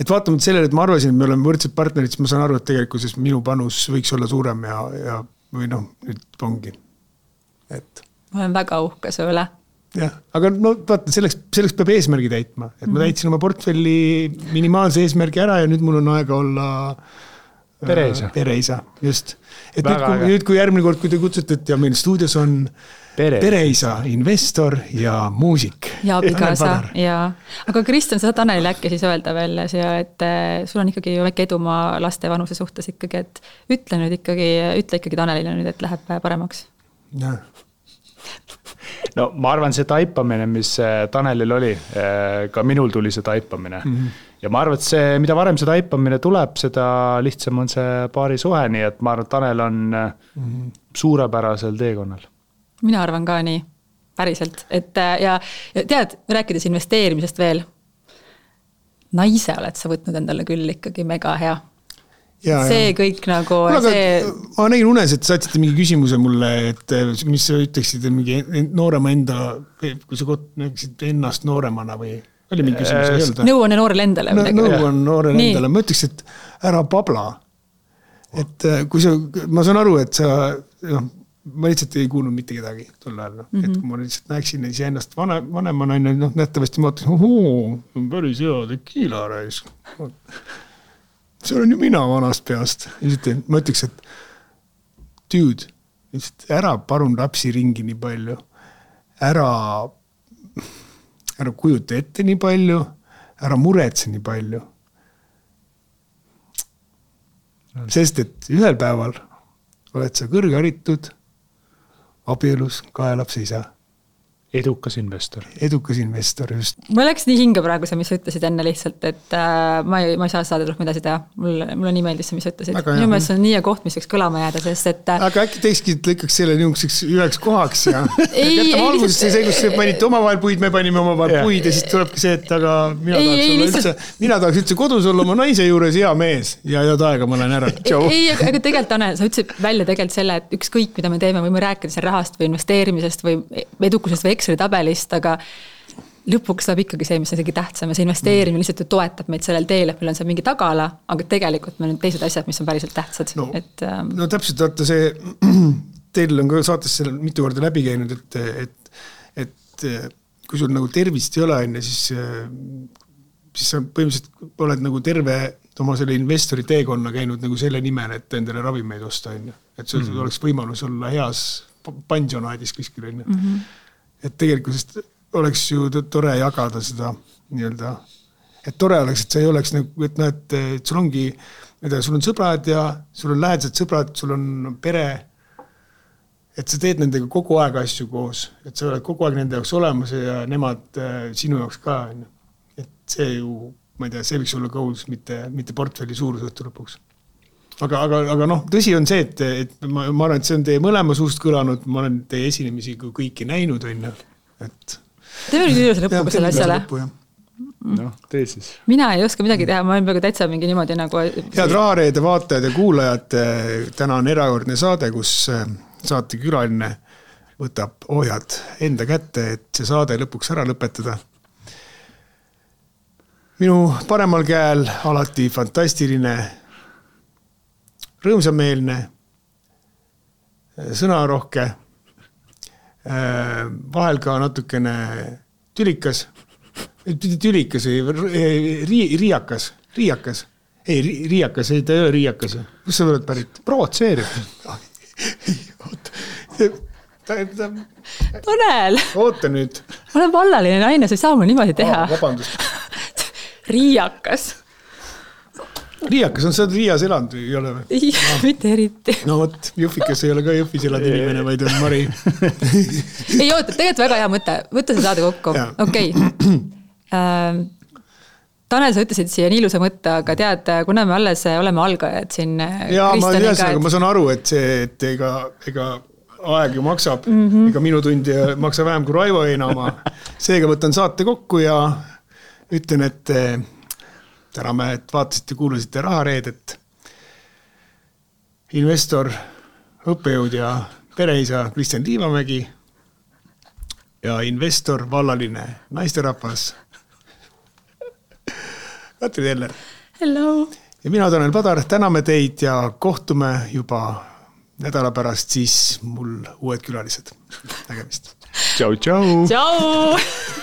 vaatamata sellele, et ma arvasin, et me oleme võrdsed partnerid, siis ma saan aru, et tegelikkuses minu panus võiks olla suurem ja või nüüd ongi. Ma olen väga uhke su üle. Jah, aga vaata, selleks peab eesmärgi täitma. Et ma täitsin oma portfelli minimaalse eesmärgi ära ja nüüd mul on aega olla pereisa. Just. Et nüüd kui järgmine kord, kui te kutsutate ja meil stuudios on pereisa, investor ja muusik. Ja abikaasa, jaa. Aga Kristjan, sa saad Tanelile äkki siis öelda veel, et sul on ikkagi väike edumaa laste vanuse suhtes ikkagi, et ütle ikkagi Tanelile nüüd, et läheb paremaks. Jah. No ma arvan, see taipamine, mis Tanelil oli, ka minul tuli see taipamine. Ja ma arvan, et see, mida varem see taipamine tuleb, seda lihtsam on see paari suhe, nii et ma arvan, et Tanel on suurepärasel teekonnal. Mina arvan ka nii, päriselt. Ja tead, rääkides investeerimisest veel, naise oled sa võtnud endale küll ikkagi mega hea. See kõik nagu... Ma nägin unes, et saatsite mingi küsimuse mulle, et mis sa ütleksid mingi noorema enda, kui sa näeksid ennast nooremana või oli mingi küsimus? Nõu on noorele endale. Nõu on noorele endale. Ma ütleks, et ära pabla. Et kui ma saan aru, et sa... ma lihtsalt ei kuulnud mitte kedagi tol ajal. Et kui ma lihtsalt näeksin ise ennast vanema naine, nähtavasti ma mõtlen, päris hea tekiila rais. See olen ju mina vanast peast. Ma ütleks, et dude, ära parun lapsi ringi nii palju. Ära kujuta ette nii palju. Ära muretse nii palju. Sest, et ühel päeval oled sa kõrgharitud, abielus, 2 lapse isa. Edukas investor, just. Ma läks nii hinge praegu see, mis sa ütlesid enne lihtsalt, et ma ei saa saada rohkem edasi teha. Mulle nii meeldis see, mis sa ütlesid. Minu meelest see on nii koht, mis võiks kõlama jääda, sest et... Aga äkki teekski lõikaks selle niisuguseks üheks kohaks ja... Jätame alguses see, kus panite omavahel puid, me panime omavahel puid ja siis tulebki see, et aga mina tahaks üldse kodus olla oma naise juures hea mees ja head aega ma lähen ära. Ei, aga tegelikult, Tanel, sa ütlesid välja tegelikult selle, et ükskõik, mida me teeme, võime rääkida rahast või investeerimisest või edukusest või Exceli tabelist, aga lõpuks saab ikkagi see, mis on isegi tähtsam ja see investeerimine lihtsalt ju toetab meid sellel teel, et meil on see mingi tagala, aga tegelikult meil on teised asjad, mis on päriselt tähtsad. No täpselt, vaata see, teil on ka saates selle mitu korda läbi käinud, et kui sul nagu tervist ei ole, siis sa põhimõtteliselt oled nagu terve oma selle investori teekonna käinud nagu selle nimel, et endale ravimeid osta, et sul oleks võimalus olla heas pansionaadis kuskil, et tegelikult oleks ju tore jagada seda nii-öelda, et tore oleks, et see ei oleks nagu, et sul ongi, sul on sõbrad ja sul on lähedased sõbrad, sul on pere, et sa teed nendega kogu aeg asju koos, et sa oled kogu aeg nende jaoks olemas ja nemad sinu jaoks ka, et see ju, ma ei tea, see võiks olla goals, mitte portfelli suurus õhtu lõpuks. Aga noh, tõsi on see, et ma arvan, et see on teie mõlema suust kõlanud, ma olen teie esinemisi kõiki näinud, et teeme nüüd üles lõpuga selle asjale. Noh, tee siis. Mina ei oska midagi teha, ma olen peaaegu täitsa mingi niimoodi nagu... Head Rahareede vaatajad ja kuulajad, täna on erakordne saade, kus saate külaline võtab ohjad enda kätte, et see saade lõpuks ära lõpetada. Minu paremal käel alati fantastiline, rõõmsameelne, sõnarohke, vahel ka natukene tülikas või riiakas. Ei, riiakas, ei, ta ei ole riiakas. Kus sa oled pärit? Provotseerib. Tanel! Oota nüüd. Ma olen vallaline naine, sa ei saa mul niimoodi teha. Vabandust. Riiakas. Riiakas on see Riias elanud või ei ole või? Ei, mitte eriti. No võt, Jõhvikas ei ole ka Jõhvis elanud inimene, vaid on Mari. Ei oota, tegelikult väga hea mõte. Võtta see saade kokku. Okei. Tanel, sa ütlesid siia nii ilusa mõtte, aga tead, kuna me alles oleme algajad siin Kristjaniga. Ma saan aru, et see, et ega aeg ju maksab, ega minu tundi maksa vähem kui Raivo Eina oma. Seega võtan saate kokku ja ütlen, et täname, et vaatasite, kuulasite Rahareedet. Investor, õppejõud ja pereisa Kristjan Liivamägi ja investor, vallaline naisterahvas Katri Teller. Hello. Ja mina Tanel Padar, täname teid ja kohtume juba nädala pärast siis mul uued külalised. Nägemist. Tšau, tšau. Tšau.